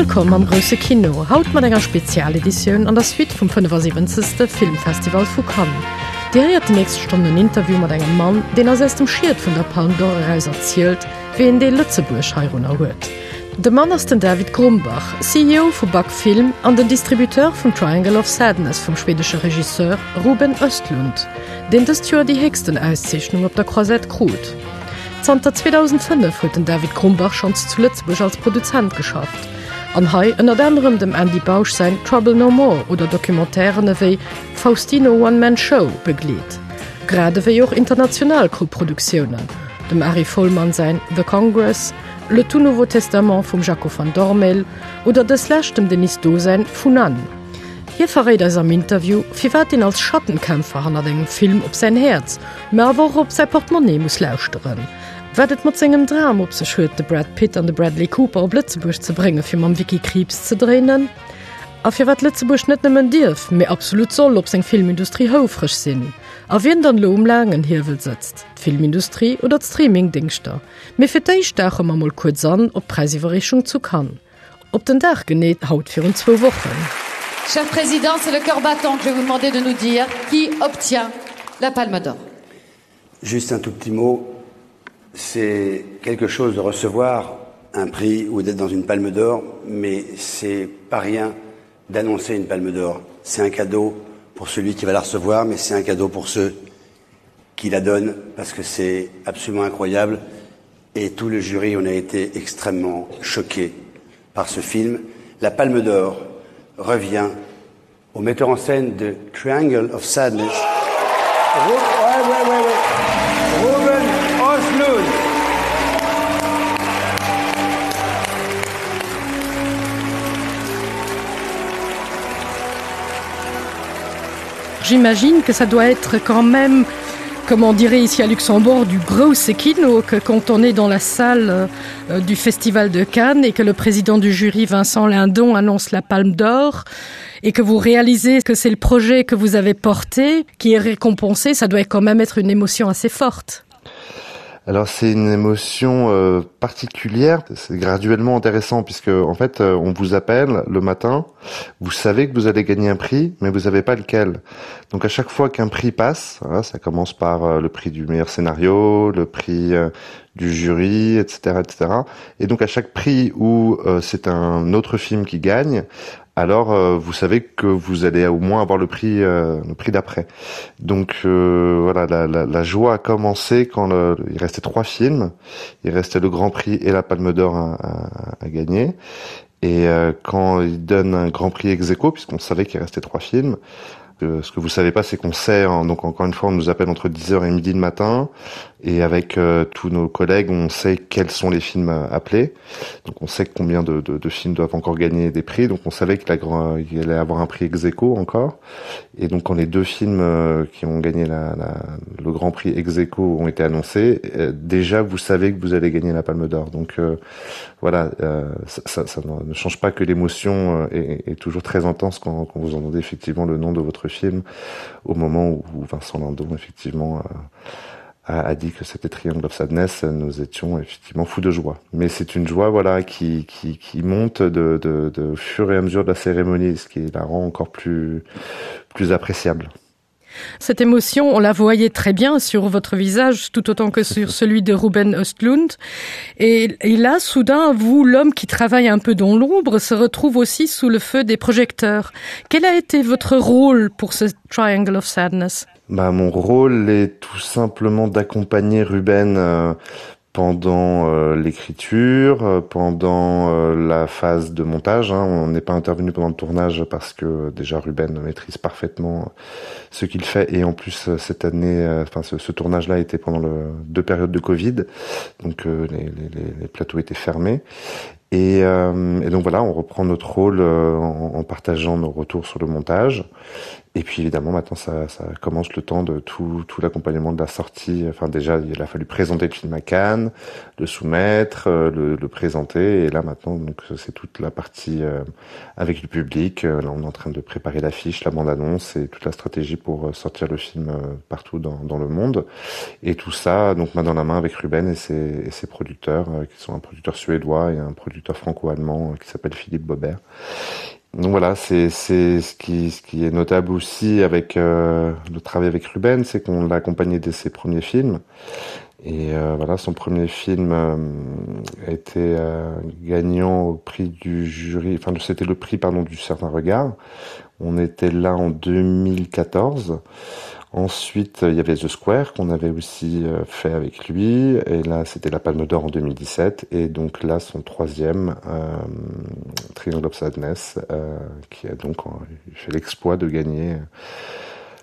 Wëllkomm am grousse Kino, haut mat enger Spezialeditioun an der Suite vum 75. Filmfestival vu Cannes. Dir héiert déi nächst Stonn en Interview mat engem Mann, deen eis aus dem Schiet vun der Palme d'Or eraus erzielt, wéi een Deel Lëtzebuerg heirunner huet. De Mann ass den David Grumbach, CEO vu Buck Film an den Distributeur vun Triangle of Sadness vum schwedesche Regisseur Ruben Östlund, deen dëst Joer déi héchsten Auszeechnung op der Croisette krut. Zanter 2005 huet den David Grumbach schonns zu Lëtzebuerg als Produzent geschafft an hei ënnert anerem dem Andy Bausch säin Trouble No More oder Documentairen ewéi Faustino One Man Show begleet, grad ewéi och international Koproduktiounen, dem Ari Folman säin The Congress, Le tout nouveau testament vum Jaco van Dormael oder dës lescht dem Denis Do säin Funan. Hie verréit eis am Interview, firwat een als Schattenkämpfer hannert engem Film op säin Häerz, mä awer och op säi Portemonnaie muss lauschteren. Wat et mat sengem Dram op sech huet, de Brad Pitt an de Bradley Cooper op Lëtzebuerg ze brénge fir mam Vicky Krieps ze dréinen. A firwat Lëtzebuerg net nëmmen dierf, mee absolut soll op seng Filmindustrie houfreg sinn. A wien dann elo um laangen Hiewel sëtzt, d'Filmindustrie oder d'Streamingdéngschter. Mee fir d'éischt dauche mer mol kuerz an op d'Präisiwwerreechung zu Cannes. Op den Dag genee haut virun zwou Wochen. Cher Président, c'est le cœur battant que je vais vous demander de nous dire qui obtient la Palme d'Or. Juste un tout petit mot, c'est quelque chose de recevoir un prix ou d'être dans une palme d'or, mais c'est pas rien d'annoncer une palme d'or. C'est un cadeau pour celui qui va la recevoir, mais c'est un cadeau pour ceux qui la donnent, parce que c'est absolument incroyable. Et tout le jury, on a été extrêmement choqué par ce film. La palme d'or revient au metteur en scène de Triangle of Sadness. Ouais, ouais, ouais, ouais. Ruben Oslund. J'imagine que ça doit être quand même, comme on dirait ici à Luxembourg, du gros kino que quand on est dans la salle euh, du Festival de Cannes et que le président du jury Vincent Lindon annonce la palme d'or et que vous réalisez que c'est le projet que vous avez porté qui est récompensé, ça doit quand même être une émotion assez forte. Alors c'est une émotion euh, particulière, c'est graduellement intéressant puisque en fait euh, on vous appelle le matin, vous savez que vous allez gagner un prix mais vous savez pas lequel. Donc à chaque fois qu'un prix passe, voilà, ça commence par euh, le prix du meilleur scénario, le prix euh, du jury, etc etc. Et donc à chaque prix où euh, c'est un autre film qui gagne, alors euh, vous savez que vous allez au moins avoir le prix euh, le prix d'après donc euh, voilà la, la, la joie a commencé quand le, il restait trois films il restait le grand prix et la palme d'or à, à, à gagner et euh, quand il donne un grand prix ex aequo puisqu'on savait qu'il restait trois films Euh, ce que vous savez pas c'est qu'on sait hein, donc encore une fois on nous appelle entre 10 heures et midi le matin et avec euh, tous nos collègues on sait quels sont les films euh, appelés donc on sait combien de, de, de films doivent encore gagner des prix donc on savait que la grand il allait avoir un prix ex aequo encore et donc quand les deux films euh, qui ont gagné la, la, le grand prix ex aequo ont été annoncés euh, déjà vous savez que vous allez gagner la palme d'or donc euh, voilà euh, ça, ça, ça ne change pas que l'émotion euh, est, est toujours très intense quand, quand vous entendez effectivement le nom de votre film au moment où Vincent Lindon effectivement euh, a, a dit que c'était Triangle of Sadness nous étions effectivement fous de joie mais c'est une joie voilà qui, qui, qui monte de, de, de fur et à mesure de la cérémonie ce qui la rend encore plus plus appréciable. Cette émotion, on la voyait très bien sur votre visage, tout autant que sur celui de Ruben Östlund. Et, et là, soudain, vous, l'homme qui travaille un peu dans l'ombre, se retrouve aussi sous le feu des projecteurs. Quel a été votre rôle pour ce Triangle of Sadness bah, Mon rôle est tout simplement d'accompagner Ruben euh, pendant euh, l'écriture, euh, pendant euh, la phase de montage. Hein. On n'est pas intervenu pendant le tournage parce que déjà Ruben maîtrise parfaitement ce qu'il fait et en plus euh, cette année euh, enfin ce, ce tournage là était pendant le, deux périodes de Covid donc euh, les, les, les plateaux étaient fermés et, euh, et donc voilà on reprend notre rôle euh, en, en partageant nos retours sur le montage. Et puis évidemment maintenant ça, ça commence le temps de tout, tout l'accompagnement de la sortie. Enfin déjà il a fallu présenter le film à Cannes, le soumettre, euh, le, le présenter et là maintenant donc c'est toute la partie euh, avec le public. Euh, là on est en train de préparer l'affiche, la bande-annonce et toute la stratégie pour sortir le film partout dans, dans le monde. Et tout ça donc main dans la main avec Ruben et ses, et ses producteurs qui sont un producteur suédois et un producteur franco-allemand qui s'appelle Philippe Bobert. Donc voilà, c'est ce qui, ce qui est notable aussi avec euh, le travail avec Ruben, c'est qu'on l'a accompagné dès ses premiers films. Et euh, voilà, son premier film euh, était euh, gagnant au prix du jury, enfin c'était le prix pardon du certain regard. On était là en 2014. Ensuite, il y avait The Square qu'on avait aussi euh, fait avec lui. Et là, c'était la Palme d'Or en 2017. Et donc là, son troisième, euh, Triangle of Sadness, euh, qui a donc fait l'exploit de gagner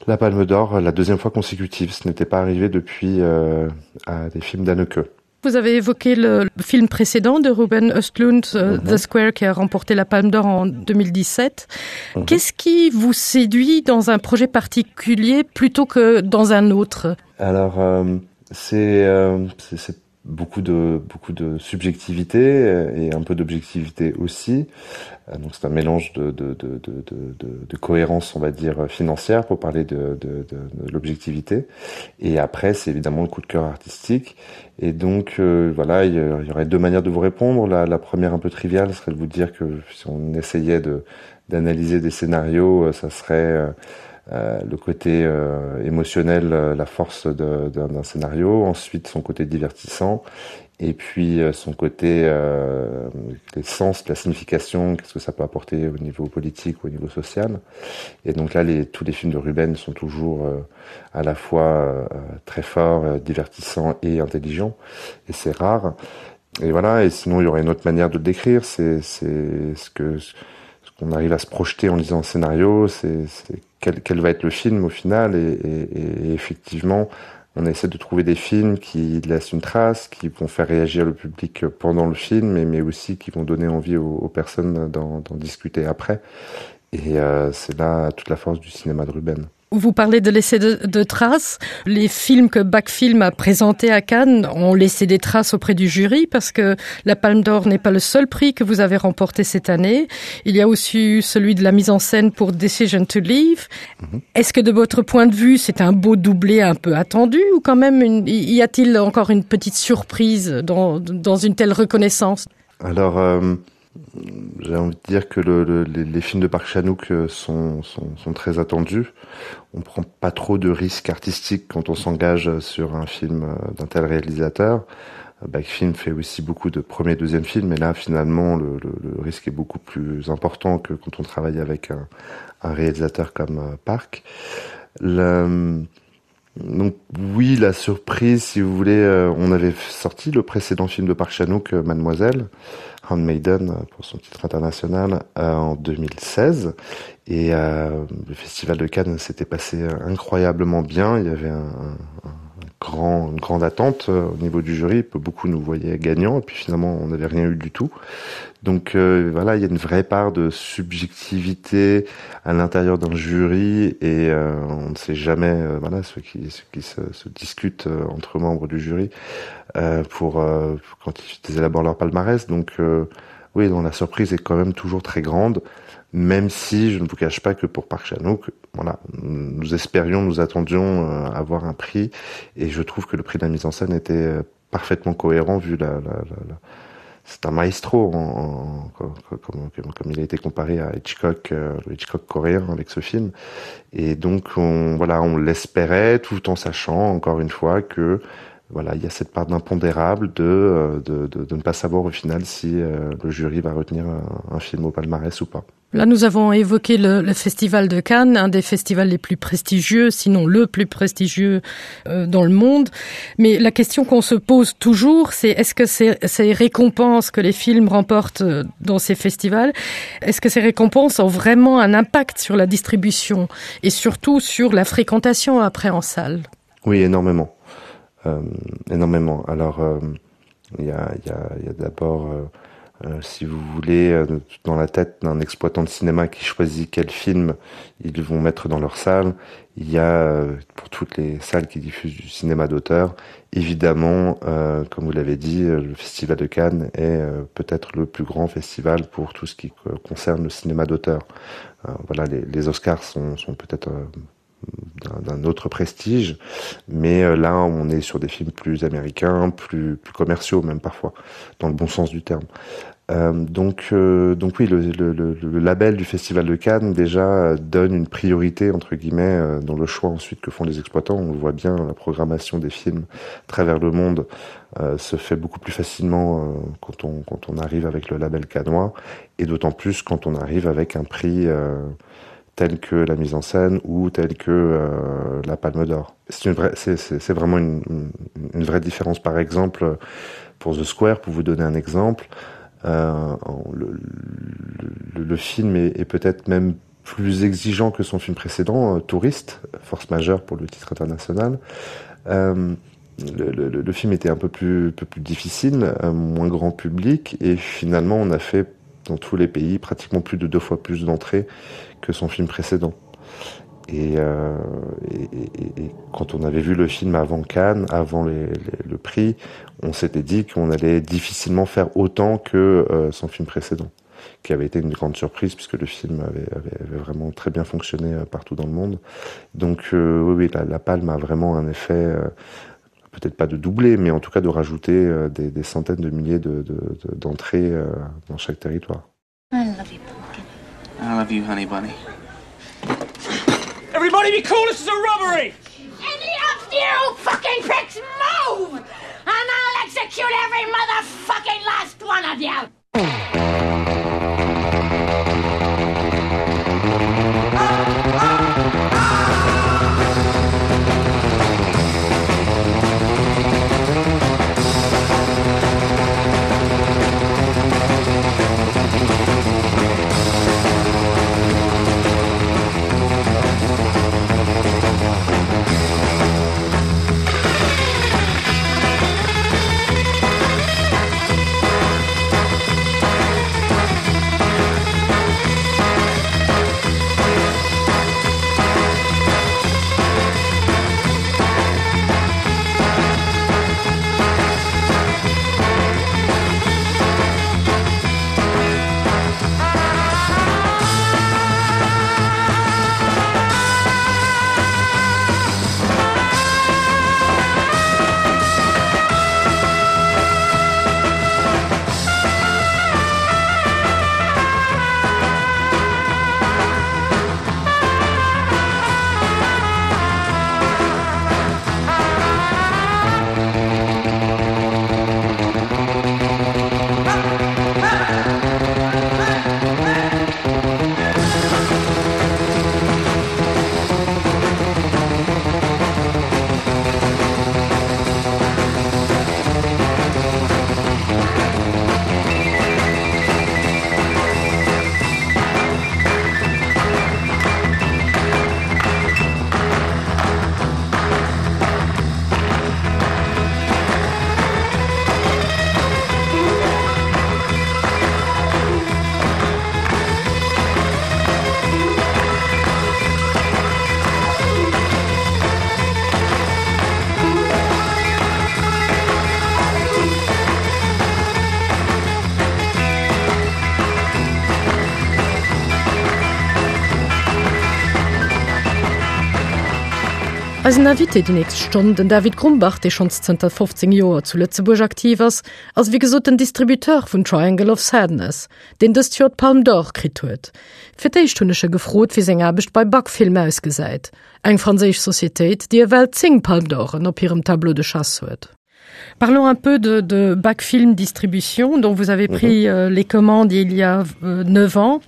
la Palme d'Or la deuxième fois consécutive. Ce n'était pas arrivé depuis euh, à des films d'Anneke. Vous avez évoqué le film précédent de Ruben Östlund, euh, mm -hmm. The Square, qui a remporté la Palme d'Or en 2017. Mm -hmm. Qu'est-ce qui vous séduit dans un projet particulier plutôt que dans un autre Alors, euh, c'est euh, beaucoup de, beaucoup de subjectivité euh, et un peu d'objectivité aussi. Euh, donc c'est un mélange de, de, de, de, de, de cohérence, on va dire, financière pour parler de, de, de, de l'objectivité. Et après, c'est évidemment le coup de cœur artistique. Et donc, euh, voilà, il y aurait deux manières de vous répondre. La, la première un peu triviale serait de vous dire que si on essayait d'analyser des scénarios, euh, ça serait euh, euh, le côté euh, émotionnel, euh, la force d'un scénario, ensuite son côté divertissant, et puis euh, son côté euh, les sens, la signification, qu'est-ce que ça peut apporter au niveau politique ou au niveau social. Et donc là, les, tous les films de Ruben sont toujours euh, à la fois euh, très forts, euh, divertissants et intelligents, et c'est rare. Et voilà, et sinon il y aurait une autre manière de le décrire, c'est ce que ce qu'on arrive à se projeter en lisant un scénario, c'est quel, quel va être le film au final et, et, et effectivement on essaie de trouver des films qui laissent une trace, qui vont faire réagir le public pendant le film, mais, mais aussi qui vont donner envie aux, aux personnes d'en discuter après. Et euh, c'est là toute la force du cinéma de Ruben. Vous parlez de laisser de, de traces. Les films que Backfilm a présentés à Cannes ont laissé des traces auprès du jury parce que la Palme d'Or n'est pas le seul prix que vous avez remporté cette année. Il y a aussi eu celui de la mise en scène pour Decision to Leave. Mm -hmm. Est-ce que de votre point de vue, c'est un beau doublé un peu attendu ou quand même une, y a-t-il encore une petite surprise dans, dans une telle reconnaissance Alors euh j'ai envie de dire que le, le, les, les films de Park Chanouk euh, sont, sont, sont très attendus. On prend pas trop de risques artistiques quand on s'engage sur un film euh, d'un tel réalisateur. Euh, Backfilm fait aussi beaucoup de premier et deuxième films, et là finalement le, le, le risque est beaucoup plus important que quand on travaille avec un, un réalisateur comme Park. Le, donc oui, la surprise, si vous voulez, euh, on avait sorti le précédent film de Park Chanouk, euh, Mademoiselle, Handmaiden euh, pour son titre international euh, en 2016 et euh, le festival de Cannes s'était passé incroyablement bien. Il y avait un, un, un grand, une grande attente euh, au niveau du jury, beaucoup nous voyaient gagnants et puis finalement on n'avait rien eu du tout. Donc euh, voilà, il y a une vraie part de subjectivité à l'intérieur d'un jury et euh, on ne sait jamais euh, voilà, ce qui, ce qui se, se discute euh, entre membres du jury euh, pour, euh, quand ils élaborent leur palmarès. Donc euh, oui, donc la surprise est quand même toujours très grande, même si je ne vous cache pas que pour Park Chanouk, voilà, nous espérions, nous attendions euh, avoir un prix et je trouve que le prix de la mise en scène était euh, parfaitement cohérent vu la, la, la, la c'est un maestro en, en, comme, comme, comme il a été comparé à Hitchcock, euh, le Hitchcock coréen avec ce film. Et donc on, voilà, on l'espérait tout en sachant encore une fois que voilà, il y a cette part d'impondérable de, euh, de, de, de ne pas savoir au final si euh, le jury va retenir un, un film au palmarès ou pas. Là, nous avons évoqué le, le festival de Cannes, un des festivals les plus prestigieux, sinon le plus prestigieux euh, dans le monde. Mais la question qu'on se pose toujours, c'est est-ce que ces, ces récompenses que les films remportent euh, dans ces festivals, est-ce que ces récompenses ont vraiment un impact sur la distribution et surtout sur la fréquentation après en salle Oui, énormément. Euh, énormément. Alors, euh, il y a, y a, y a d'abord euh, Euh, si vous voulez, euh, dans la tête d'un exploitant de cinéma qui choisit quel film ils vont mettre dans leur salle, il y a euh, pour toutes les salles qui diffusent du cinéma d'auteur, évidemment, euh, comme vous l'avez dit, euh, le Festival de Cannes est euh, peut-être le plus grand festival pour tout ce qui concerne le cinéma d'auteur. Euh, voilà, les, les Oscars sont, sont peut-être euh, d'un autre prestige, mais euh, là on est sur des films plus américains, plus, plus commerciaux même parfois, dans le bon sens du terme. Euh, donc, euh, donc oui, le, le, le, le label du Festival de Cannes déjà euh, donne une priorité entre guillemets euh, dans le choix ensuite que font les exploitants. On le voit bien, la programmation des films à travers le monde euh, se fait beaucoup plus facilement euh, quand, on, quand on arrive avec le label canois et d'autant plus quand on arrive avec un prix euh, tel que la mise en scène ou tel que euh, la Palme d'Or. C'est vraiment une, une, une vraie différence. Par exemple, pour The Square, pour vous donner un exemple, euh, le, le, le film est, est peut-être même plus exigeant que son film précédent, euh, Touriste, Force majeure pour le titre international. Euh, le, le, le film était un peu plus, peu plus difficile, euh, moins grand public, et finalement on a fait dans tous les pays pratiquement plus de deux fois plus d'entrées que son film précédent. Et, euh, et, et, et quand on avait vu le film avant Cannes, avant les, les, le prix, on s'était dit qu'on allait difficilement faire autant que euh, son film précédent, qui avait été une grande surprise puisque le film avait, avait, avait vraiment très bien fonctionné euh, partout dans le monde. Donc euh, oui, oui la, la palme a vraiment un effet euh, peut-être pas de doubler, mais en tout cas de rajouter euh, des, des centaines de milliers d'entrées de, de, euh, dans chaque territoire. I love you, pumpkin. I love you, honey bunny. Everybody be cool, this is a robbery! Any of you fucking pricks move! And I'll execute every motherfucking last one of you! Eisen Invité déi nächst Stonn, den David Grumbach, dee schonns zënter 15 Joer zu Lëtzebuerg aktiv ass, ass wéi gesot den Distributeur vun Triangle of Sadness, deen dëst Joer d'Palme d'Or kritt huet. Fir d'éischt hunn ech e gefrot, wéi seng Aarbecht bei Bac Film ausgesäit, eng franséisch Societéit, déi ewell 10 Palme d'Oren op hirem Tableau de chasse huet. Parlons un peu de, de Bac Film Distribution dont vous avez pris mm -hmm. euh, les commandes il y a euh, 9 ans.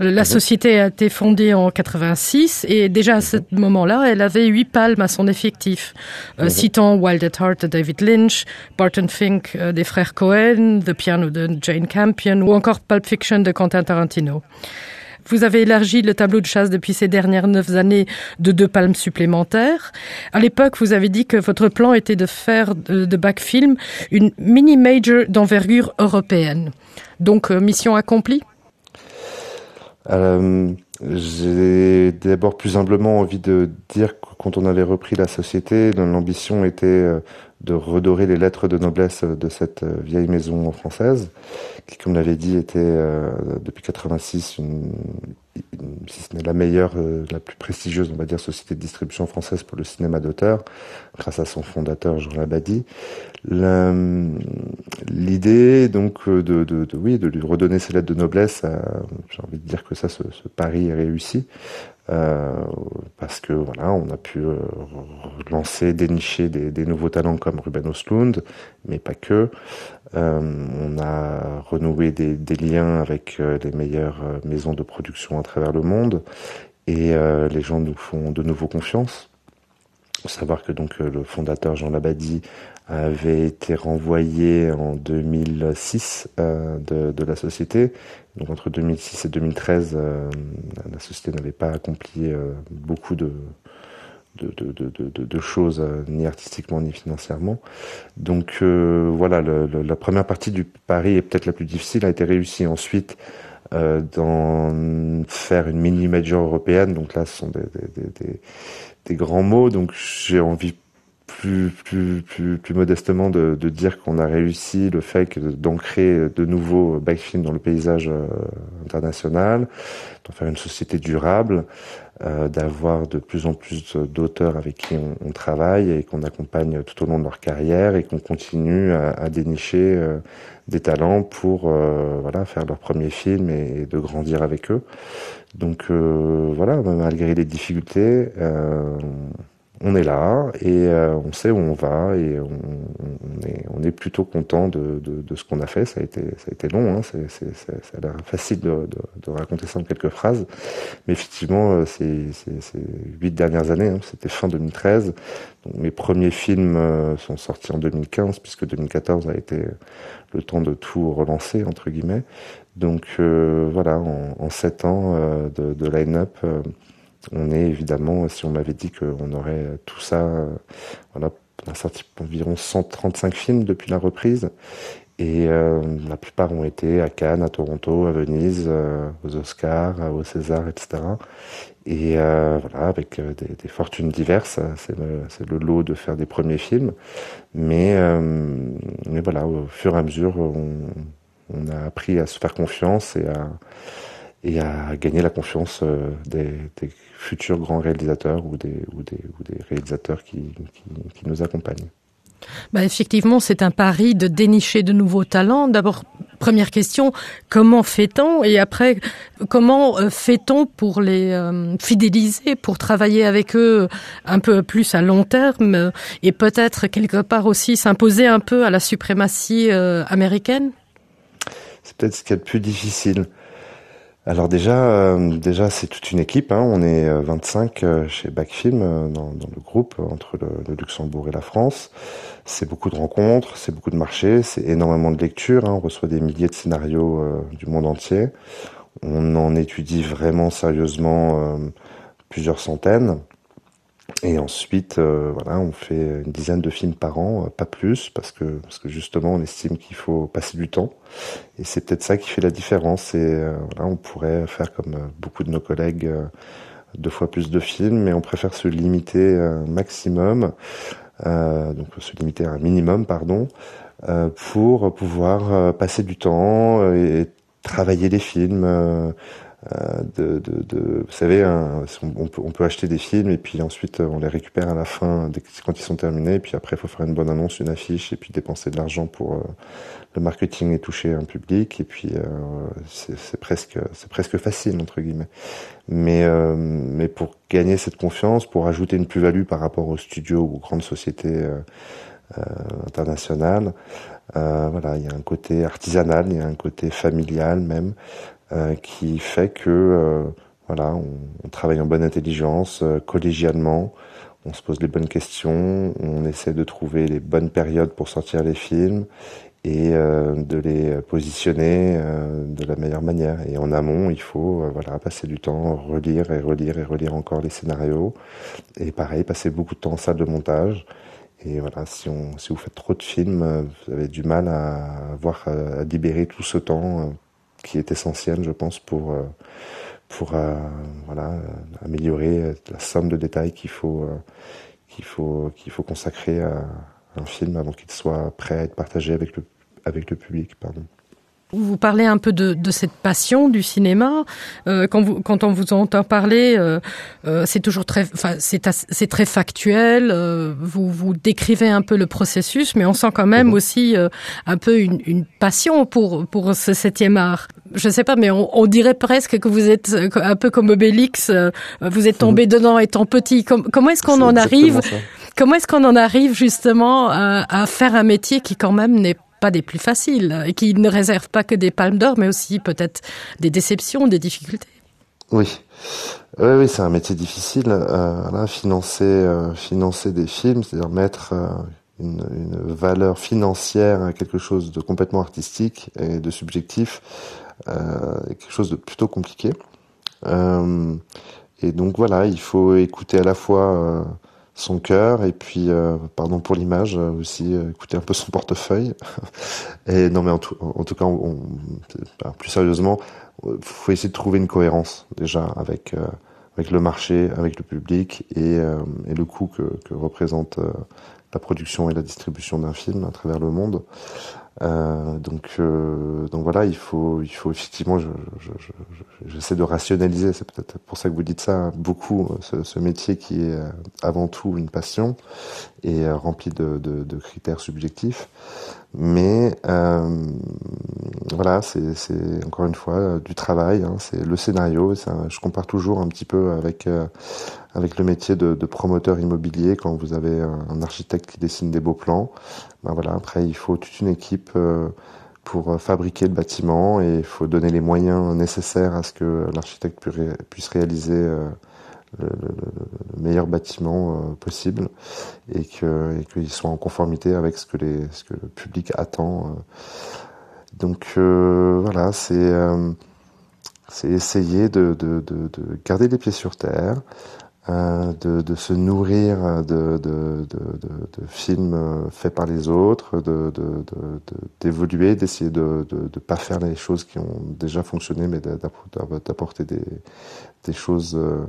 Euh, la mm -hmm. société a été fondée en 86 et déjà à mm -hmm. ce moment-là, elle avait huit palmes à son effectif. Euh, mm -hmm. Citant Wild at Heart de David Lynch, Barton Fink euh, des frères Cohen, The Piano de Jane Campion ou encore Pulp Fiction de Quentin Tarantino. Vous avez élargi le tableau de chasse depuis ces dernières neuf années de deux palmes supplémentaires. À l'époque, vous avez dit que votre plan était de faire de, de Backfilm une mini-major d'envergure européenne. Donc, euh, mission accomplie euh, J'ai d'abord plus humblement envie de dire que quand on avait repris la société, l'ambition était euh, de redorer les lettres de noblesse de cette euh, vieille maison française, qui, comme l'avait dit, était euh, depuis 86 une, une, si ce n'est la meilleure, euh, la plus prestigieuse, on va dire, société de distribution française pour le cinéma d'auteur, grâce à son fondateur Jean Labadie. L'idée donc euh, de, de, de, oui, de lui redonner ses lettres de noblesse, euh, j'ai envie de dire que ça, ce, ce pari est réussi. Euh, parce que voilà, on a pu euh, lancer, dénicher des, des nouveaux talents comme Ruben Oslund, mais pas que. Euh, on a renoué des, des liens avec euh, les meilleures euh, maisons de production à travers le monde et euh, les gens nous font de nouveau confiance. Faut savoir que donc euh, le fondateur Jean Labadie avait été renvoyé en 2006 euh, de, de la société. Donc entre 2006 et 2013, euh, la société n'avait pas accompli euh, beaucoup de, de, de, de, de, de choses euh, ni artistiquement ni financièrement. Donc euh, voilà le, le, la première partie du pari est peut-être la plus difficile a été réussie ensuite euh, d'en faire une mini major européenne donc là ce sont des, des, des, des, des grands mots donc j'ai envie plus plus plus plus modestement de, de dire qu'on a réussi le fait d'ancrer de nouveaux backfilms dans le paysage euh, international d'en faire une société durable euh, d'avoir de plus en plus d'auteurs avec qui on, on travaille et qu'on accompagne tout au long de leur carrière et qu'on continue à, à dénicher euh, des talents pour euh, voilà faire leur premier film et, et de grandir avec eux donc euh, voilà malgré les difficultés euh, on est là et euh, on sait où on va et on, on, est, on est plutôt content de, de, de ce qu'on a fait ça a été ça a été long c'est c'est ça a l'air facile de, de, de raconter ça en quelques phrases mais effectivement euh, c'est ces huit dernières années c'était fin 2013 donc mes premiers films euh, sont sortis en 2015 puisque 2014 a été le temps de tout relancer entre guillemets donc euh, voilà en, en sept ans euh, de, de line up euh, on est évidemment si on m'avait dit qu'on aurait tout ça euh, voilà on a sorti environ 135 films depuis la reprise et euh, la plupart ont été à Cannes à Toronto à Venise euh, aux Oscars euh, au César etc et euh, voilà avec euh, des, des fortunes diverses c'est le, le lot de faire des premiers films mais euh, mais voilà au fur et à mesure on, on a appris à se faire confiance et à et à gagner la confiance euh, des, des futurs grands réalisateurs ou des, ou des, ou des réalisateurs qui, qui, qui nous accompagnent. Bah effectivement, c'est un pari de dénicher de nouveaux talents. D'abord, première question, comment fait-on Et après, comment euh, fait-on pour les euh, fidéliser, pour travailler avec eux un peu plus à long terme et peut-être quelque part aussi s'imposer un peu à la suprématie américaine C'est peut-être ce qui est le plus difficile. Alors déjà euh, déjà c'est toute une équipe hein. on est 25 euh, euh, chez Backfilm euh, dans, dans le groupe entre le, le Luxembourg et la France. C'est beaucoup de rencontres, c'est beaucoup de marchés, c'est énormément de lectures, hein. on reçoit des milliers de scénarios euh, du monde entier. On en étudie vraiment sérieusement euh, plusieurs centaines. Et ensuite euh, voilà, on fait une dizaine de films par an, euh, pas plus parce que, parce que justement on estime qu'il faut passer du temps. Et c'est peut-être ça qui fait la différence et euh, voilà, on pourrait faire comme euh, beaucoup de nos collègues euh, deux fois plus de films, mais on préfère se limiter un maximum euh, donc se limiter à un minimum pardon euh, pour pouvoir euh, passer du temps et travailler les films euh, Euh, de, de, de vous savez un, on, peut, on peut acheter des films et puis ensuite on les récupère à la fin dès, quand ils sont terminés et puis après il faut faire une bonne annonce une affiche et puis dépenser de l'argent pour euh, le marketing et toucher un public et puis euh, c'est presque c'est presque facile entre guillemets mais euh, mais pour gagner cette confiance pour ajouter une plus-value par rapport aux studios ou aux grandes sociétés euh, euh, internationales euh, voilà il y a un côté artisanal il y a un côté familial même euh, qui fait que euh, voilà on, on travaille en bonne intelligence euh, collégialement on se pose les bonnes questions, on essaie de trouver les bonnes périodes pour sortir les films et euh, de les positionner euh, de la meilleure manière. Et en amont, il faut euh, voilà, passer du temps, relire et relire et relire encore les scénarios. Et pareil, passer beaucoup de temps en salle de montage. Et voilà, si, on, si vous faites trop de films, euh, vous avez du mal à, avoir, à libérer tout ce temps euh, qui est essentiel, je pense, pour, euh, pour euh, voilà, euh, améliorer la somme de détails qu'il faut, euh, qu'il faut, qu'il faut consacrer à un film avant qu'il soit prêt à être partagé avec le, avec le public. Pardon. Vous parlez un peu de, de cette passion du cinéma euh, quand, vous, quand on vous entend parler euh, euh, c'est toujours très c'est très factuel euh, vous vous décrivez un peu le processus mais on sent quand même mmh. aussi euh, un peu une, une passion pour pour ce septième art je sais pas mais on, on dirait presque que vous êtes euh, un peu comme Obélix euh, vous êtes tombé mmh. dedans étant petit Com comment est-ce qu'on en arrive comment est-ce qu'on en arrive justement à, à faire un métier qui quand même n'est pas des plus faciles et qui ne réserve pas que des palmes d'or mais aussi peut-être des déceptions des difficultés oui oui, oui c'est un métier difficile euh, là, financer euh, financer des films c'est à dire mettre euh, une, une valeur financière à quelque chose de complètement artistique et de subjectif euh, quelque chose de plutôt compliqué euh, et donc voilà il faut écouter à la fois euh, son cœur et puis euh, pardon pour l'image euh, aussi euh, écouter un peu son portefeuille et non mais en tout, en tout cas on, on, plus sérieusement faut essayer de trouver une cohérence déjà avec euh, avec le marché avec le public et, euh, et le coût que, que représente euh, la production et la distribution d'un film à travers le monde euh, donc euh, donc voilà il faut il faut effectivement je, je, je, j'essaie de rationaliser c'est peut-être pour ça que vous dites ça beaucoup ce, ce métier qui est euh, avant tout une passion et euh, rempli de, de, de critères subjectifs mais euh, voilà c'est encore une fois euh, du travail c'est le scénario ça, je compare toujours un petit peu avec euh, avec le métier de, de promoteur immobilier quand vous avez un, un architecte qui dessine des beaux plans ben voilà après il faut toute une équipe euh, pour euh, fabriquer le bâtiment et il faut donner les moyens nécessaires à ce que l'architecte puisse réaliser euh, le, le, le meilleur bâtiment euh, possible et que et qu'il soit en conformité avec ce que les ce que le public attend euh. donc euh, voilà c'est euh, c'est essayer de, de, de, de garder les pieds sur terre euh, de, de se nourrir de, de, de, de, de films euh, faits par les autres, d'évoluer, de, de, de, d'essayer de ne pas faire les choses qui ont déjà fonctionné, mais d'apporter des, des choses euh,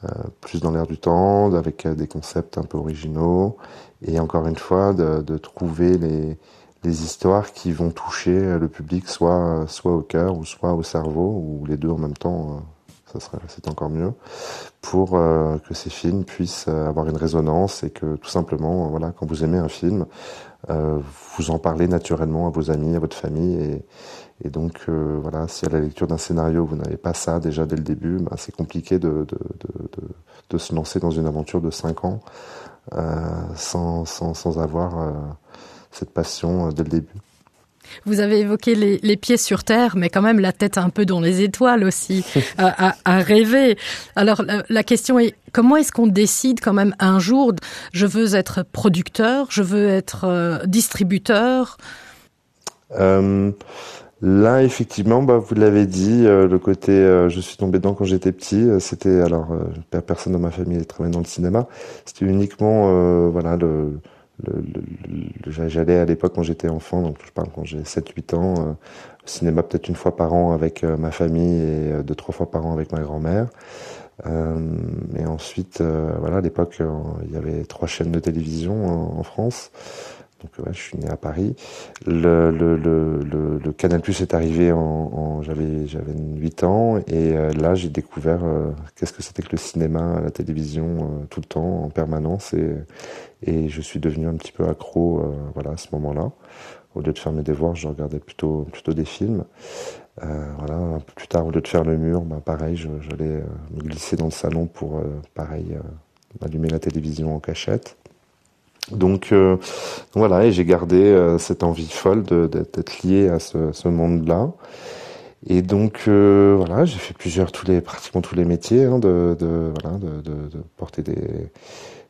euh, plus dans l'air du temps, avec des concepts un peu originaux, et encore une fois, de, de trouver les, les histoires qui vont toucher le public, soit, soit au cœur ou soit au cerveau, ou les deux en même temps ça serait c'est encore mieux pour euh, que ces films puissent euh, avoir une résonance et que tout simplement euh, voilà quand vous aimez un film euh, vous en parlez naturellement à vos amis à votre famille et, et donc euh, voilà si à la lecture d'un scénario vous n'avez pas ça déjà dès le début ben, c'est compliqué de, de, de, de, de se lancer dans une aventure de cinq ans euh, sans, sans, sans avoir euh, cette passion euh, dès le début. Vous avez évoqué les, les pieds sur terre, mais quand même la tête un peu dans les étoiles aussi, à, à, à rêver. Alors la, la question est comment est-ce qu'on décide quand même un jour je veux être producteur, je veux être euh, distributeur euh, Là effectivement bah, vous l'avez dit euh, le côté euh, je suis tombé dedans quand j'étais petit euh, c'était alors euh, personne dans ma famille travaillait dans le cinéma c'était uniquement euh, voilà le j'allais à l'époque quand j'étais enfant donc je parle quand j'ai 7 8 ans euh, au cinéma peut-être une fois par an avec euh, ma famille et euh, deux trois fois par an avec ma grand-mère euh, et ensuite euh, voilà à l'époque euh, il y avait trois chaînes de télévision en, en France donc ouais, je suis né à Paris le, le, le, le, le canal plus est arrivé en, en j'avais j'avais 8 ans et euh, là j'ai découvert euh, qu'est-ce que c'était que le cinéma la télévision euh, tout le temps en permanence et et je suis devenu un petit peu accro euh, voilà à ce moment là au lieu de faire mes devoirs je regardais plutôt plutôt des films euh, voilà un peu plus tard au lieu de faire le mur ben pareil j'allais euh, me glisser dans le salon pour euh, pareil euh, allumer la télévision en cachette donc euh, voilà et j'ai gardé euh, cette envie folle d'être lié à ce, ce monde là Et donc euh, voilà, j'ai fait plusieurs tous les pratiquement tous les métiers hein, de, de, voilà, de, de, de porter des,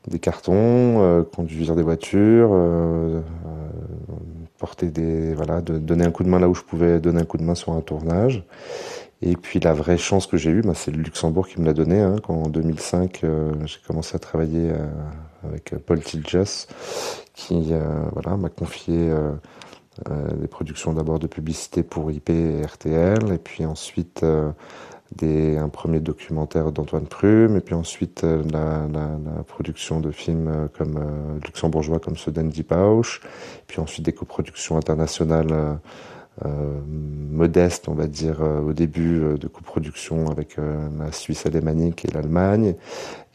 des cartons, euh, conduire des voitures, euh, euh, porter des voilà, de donner un coup de main là où je pouvais donner un coup de main sur un tournage. Et puis la vraie chance que j'ai eue, ben, c'est le Luxembourg qui me l'a donné hein, quand en 2005 euh, j'ai commencé à travailler euh, avec Paul Tiljas qui euh, voilà, m'a confié euh, euh, des productions d'abord de publicité pour IP et RTL et puis ensuite euh, des, un premier documentaire d'Antoine Prume et puis ensuite euh, la, la, la production de films euh, comme euh, luxembourgeois comme ceux d'Andy Pausch, puis ensuite des coproductions internationales euh, euh, modeste, on va dire, euh, au début euh, de coproduction avec euh, la Suisse alémanique et l'Allemagne.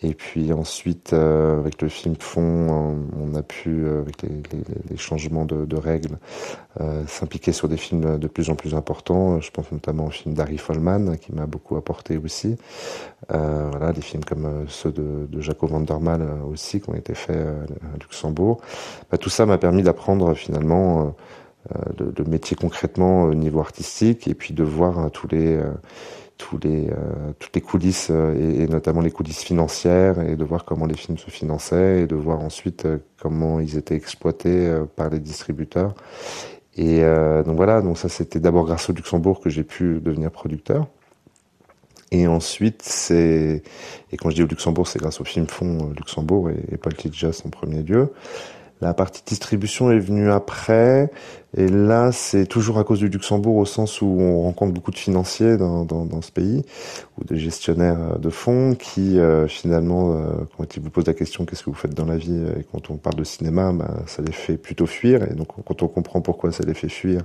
Et puis ensuite, euh, avec le film Fond, on a pu, euh, avec les, les, les changements de, de règles, euh, s'impliquer sur des films de plus en plus importants. Je pense notamment au film d'Harry Follman, qui m'a beaucoup apporté aussi. Euh, voilà, des films comme euh, ceux de, de Jaco Vandermal aussi, qui ont été faits à Luxembourg. Bah, tout ça m'a permis d'apprendre finalement euh, Euh, de, de métier concrètement au niveau artistique et puis de voir hein, tous les euh, tous les euh, toutes les coulisses euh, et, et notamment les coulisses financières et de voir comment les films se finançaient et de voir ensuite euh, comment ils étaient exploités euh, par les distributeurs et euh, donc voilà donc ça c'était d'abord grâce au Luxembourg que j'ai pu devenir producteur et ensuite c'est et quand je dis au Luxembourg c'est grâce au film fond euh, Luxembourg et, et Paul Tidjas en premier lieu et La partie distribution est venue après et là c'est toujours à cause du Luxembourg au sens où on rencontre beaucoup de financiers dans, dans, dans ce pays ou des gestionnaires euh, de fonds qui euh, finalement euh, quand ils vous posent la question qu'est-ce que vous faites dans la vie et quand on parle de cinéma ben, ça les fait plutôt fuir et donc quand on comprend pourquoi ça les fait fuir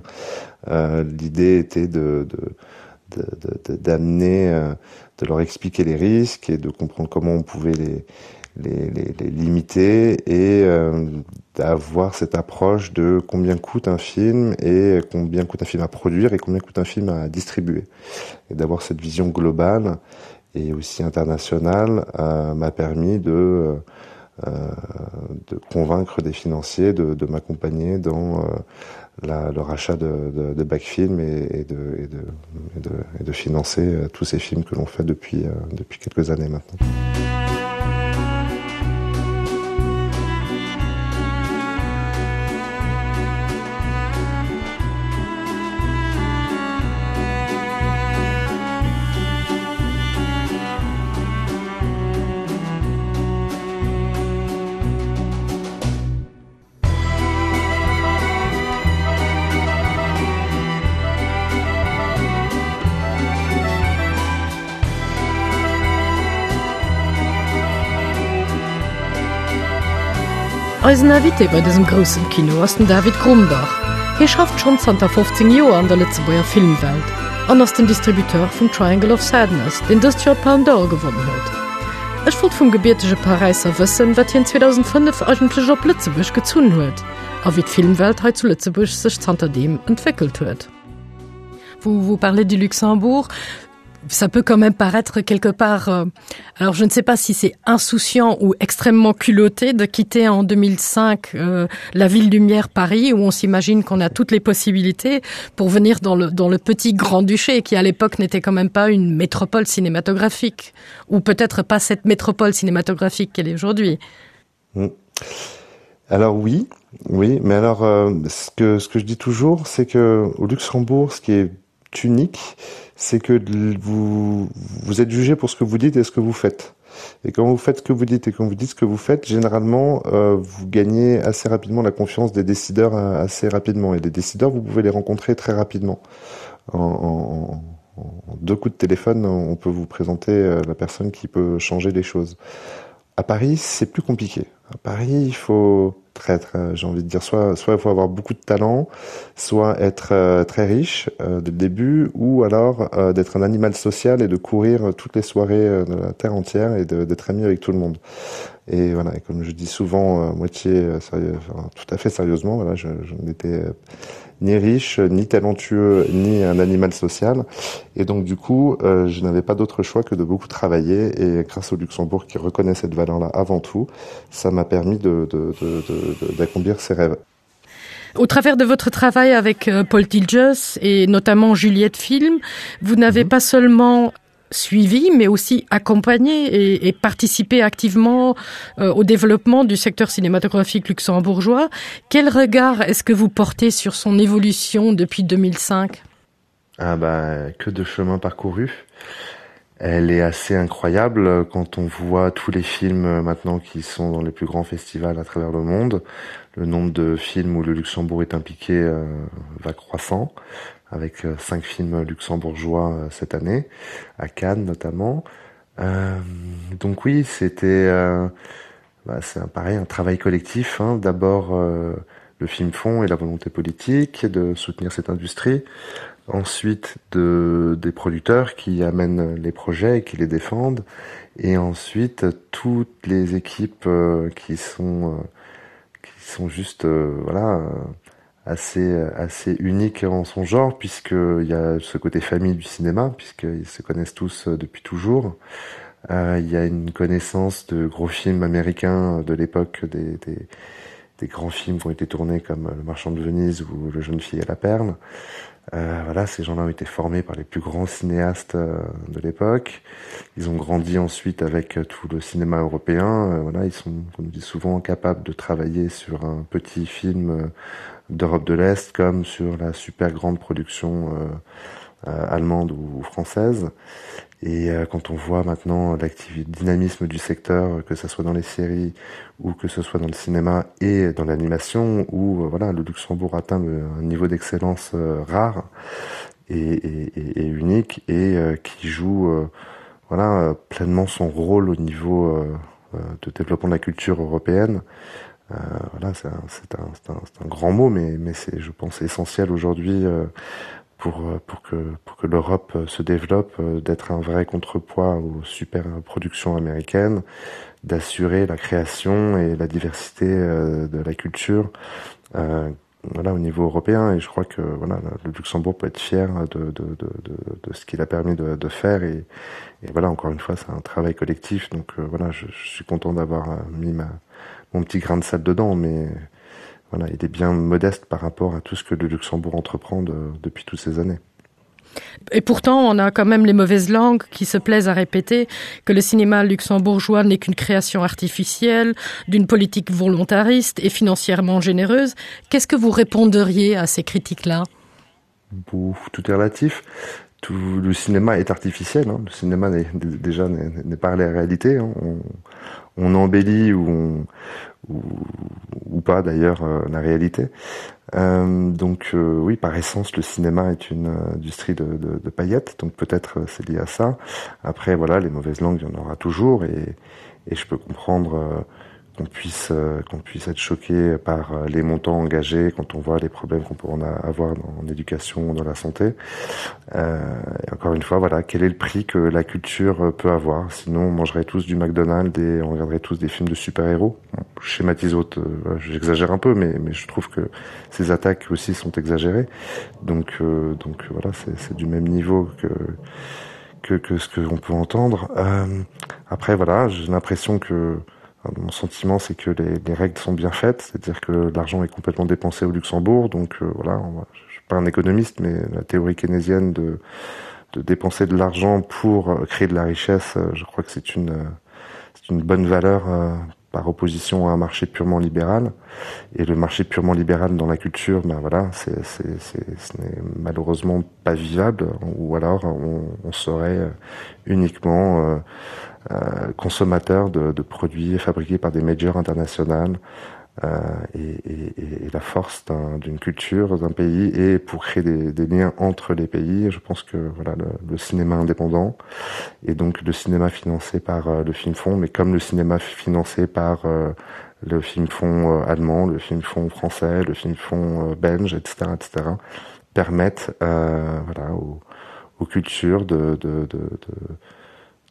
euh, l'idée était de, de d'amener de, de, de leur expliquer les risques et de comprendre comment on pouvait les les, les, les limiter et euh, d'avoir cette approche de combien coûte un film et combien coûte un film à produire et combien coûte un film à distribuer et d'avoir cette vision globale et aussi internationale euh, m'a permis de euh, de convaincre des financiers de, de m'accompagner dans euh, la, le rachat de, de, de backfilm et, et, de, et, de, et, de, et de financer euh, tous ces films que l'on fait depuis, euh, depuis quelques années maintenant. Eisen Invité bei dësem groussen Kino ass den David Grumbach. Hie schafft schonn zanter 15 Joer an der Lëtzebuerger Filmwelt an ass den Distributeur vum Triangle of Sadness, deen dëst Joer d'Palme d'Or gewonnen huet. Ech wollt vum gebiertege Paräisser wëssen, wat hien 2005 eigentlech op Lëtzebuerg gezunn huet a wéi d'Filmwelt hei zu Lëtzebuerg sech zanterdeem entwéckelt huet. Vous, vous parlez du Luxembourg ça peut quand même paraître quelque part euh, alors je ne sais pas si c'est insouciant ou extrêmement culotté de quitter en 2005 euh, la ville lumière Paris où on s'imagine qu'on a toutes les possibilités pour venir dans le dans le petit grand duché qui à l'époque n'était quand même pas une métropole cinématographique ou peut-être pas cette métropole cinématographique qu'elle est aujourd'hui mmh. alors oui oui mais alors euh, ce que ce que je dis toujours c'est que au Luxembourg ce qui est unique c'est que vous vous êtes jugé pour ce que vous dites et ce que vous faites. Et quand vous faites ce que vous dites et quand vous dites ce que vous faites, généralement euh, vous gagnez assez rapidement la confiance des décideurs euh, assez rapidement et les décideurs vous pouvez les rencontrer très rapidement. En, en, en deux coups de téléphone, on peut vous présenter euh, la personne qui peut changer les choses. À Paris, c'est plus compliqué. À Paris, il faut très, très j'ai envie de dire soit soit il faut avoir beaucoup de talent, soit être euh, très riche euh, dès le début ou alors euh, d'être un animal social et de courir toutes les soirées euh, de la terre entière et d'être ami avec tout le monde. Et voilà et comme je dis souvent euh, moitié euh, sérieux enfin, tout à fait sérieusement voilà je, je n'étais euh, ni riche, ni talentueux, ni un animal social. Et donc du coup, euh, je n'avais pas d'autre choix que de beaucoup travailler et grâce au Luxembourg qui reconnaît cette valeur là avant tout, ça m'a permis d'accomplir de, de, de, de, de, ses rêves. Au travers de votre travail avec euh, Paul Tilges et notamment Juliette Film, vous n'avez mm -hmm. pas seulement suivi, mais aussi accompagné et, et participé activement euh, au développement du secteur cinématographique luxembourgeois. Quel regard est-ce que vous portez sur son évolution depuis 2005 Ah ben, que de chemin parcouru. Elle est assez incroyable quand on voit tous les films euh, maintenant qui sont dans les plus grands festivals à travers le monde. Le nombre de films où le Luxembourg est impliqué euh, va croissant avec euh, cinq films luxembourgeois euh, cette année, à Cannes notamment. Euh, donc oui, c'était euh, bah, c'est pareil un travail collectif d'abord euh, le film fond et la volonté politique de soutenir cette industrie ensuite de des producteurs qui amènent les projets et qui les défendent et ensuite toutes les équipes euh, qui sont euh, qui sont juste euh, voilà euh, assez assez unique en son genre puisque il y a ce côté famille du cinéma puisqu'ils se connaissent tous euh, depuis toujours euh, il y a une connaissance de gros films américains de l'époque des, des des grands films qui ont été tournés comme le marchand de Venise ou le jeune fille à la perle euh, voilà ces gens là ont été formés par les plus grands cinéastes euh, de l'époque ils ont grandi ensuite avec euh, tout le cinéma européen euh, voilà ils sont comme dit souvent capables de travailler sur un petit film euh, d'Europe de l'Est comme sur la super grande production euh, euh, allemande ou, ou française et euh, quand on voit maintenant l'activité dynamisme du secteur que ce soit dans les séries ou que ce soit dans le cinéma et dans l'animation où euh, voilà le Luxembourg atteint le, un niveau d'excellence euh, rare et, et, et, et unique et euh, qui joue euh, voilà euh, pleinement son rôle au niveau euh, euh, de développement de la culture européenne euh, voilà c'est un, un, un, un grand mot mais mais c'est je pense essentiel aujourd'hui euh, pour euh, pour que pour que l'Europe euh, se développe euh, d'être un vrai contrepoids aux super productions américaines d'assurer la création et la diversité de la culture euh, voilà au niveau européen et je crois que voilà le Luxembourg peut être fier de, de, de, de, de ce qu'il a permis de, de faire et, et voilà encore une fois c'est un travail collectif donc euh, voilà je, je suis content d'avoir mis ma mon petit grain de sable dedans mais voilà, il est bien modeste par rapport à tout ce que le Luxembourg entreprend de, depuis toutes ces années. Et pourtant, on a quand même les mauvaises langues qui se plaisent à répéter que le cinéma luxembourgeois n'est qu'une création artificielle, d'une politique volontariste et financièrement généreuse. Qu'est-ce que vous répondriez à ces critiques-là Tout est relatif. Tout le cinéma est artificiel hein. Le cinéma n'est déjà n'est pas la réalité hein. On, on embellit ou on, ou, ou pas d'ailleurs euh, la réalité. Euh, donc euh, oui, par essence, le cinéma est une euh, industrie de, de, de paillettes, donc peut-être euh, c'est lié à ça. Après voilà, les mauvaises langues, il y en aura toujours et, et je peux comprendre euh, qu'on puisse, euh, qu'on puisse être choqué par euh, les montants engagés quand on voit les problèmes qu'on peut en avoir en éducation, dans la santé. Euh, et encore une fois, voilà, quel est le prix que la culture euh, peut avoir Sinon, on mangerait tous du McDonald's et on regarderait tous des films de super-héros. Bon, je schématise autre, euh, j'exagère un peu, mais, mais je trouve que ces attaques aussi sont exagérées. Donc, euh, donc voilà, c'est du même niveau que que, que ce que on peut entendre. Euh, après voilà, j'ai l'impression que mon sentiment c'est que les, les règles sont bien faites c'est à dire que l'argent est complètement dépensé au luxembourg donc euh, voilà on va, je suis pas un économiste mais la théorie keynésienne de de dépenser de l'argent pour euh, créer de la richesse euh, je crois que c'est une euh, c'est une bonne valeur par opposition à un marché purement libéral et le marché purement libéral dans la culture ben voilà c'est c'est c'est ce n'est malheureusement pas vivable ou alors on, on serait uniquement euh, euh, consommateur de, de produits fabriqués par des majors internationales euh, et, et, et la force d'une un, culture d'un pays et pour créer des, des liens entre les pays je pense que voilà le, le cinéma indépendant et donc le cinéma financé par euh, le film fond mais comme le cinéma financé par euh, le film fond euh, allemand le film fond français le film fond euh, belge etc etc permettent euh, voilà aux, aux cultures de, de, de, de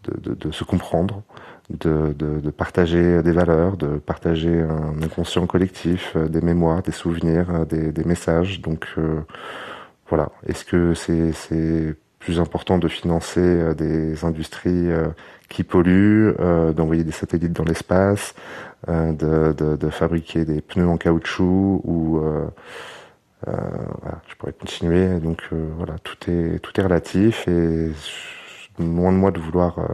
de, de, de se comprendre, de, de, de partager des valeurs, de partager un inconscient collectif, euh, des mémoires, des souvenirs, euh, des, des messages. Donc euh, voilà, est-ce que c'est plus important de financer euh, des industries euh, qui polluent, euh, d'envoyer des satellites dans l'espace, euh, de, de, de fabriquer des pneus en caoutchouc ou euh, euh, voilà, je pourrais continuer donc euh, voilà tout est tout est relatif et loin de moi de vouloir euh,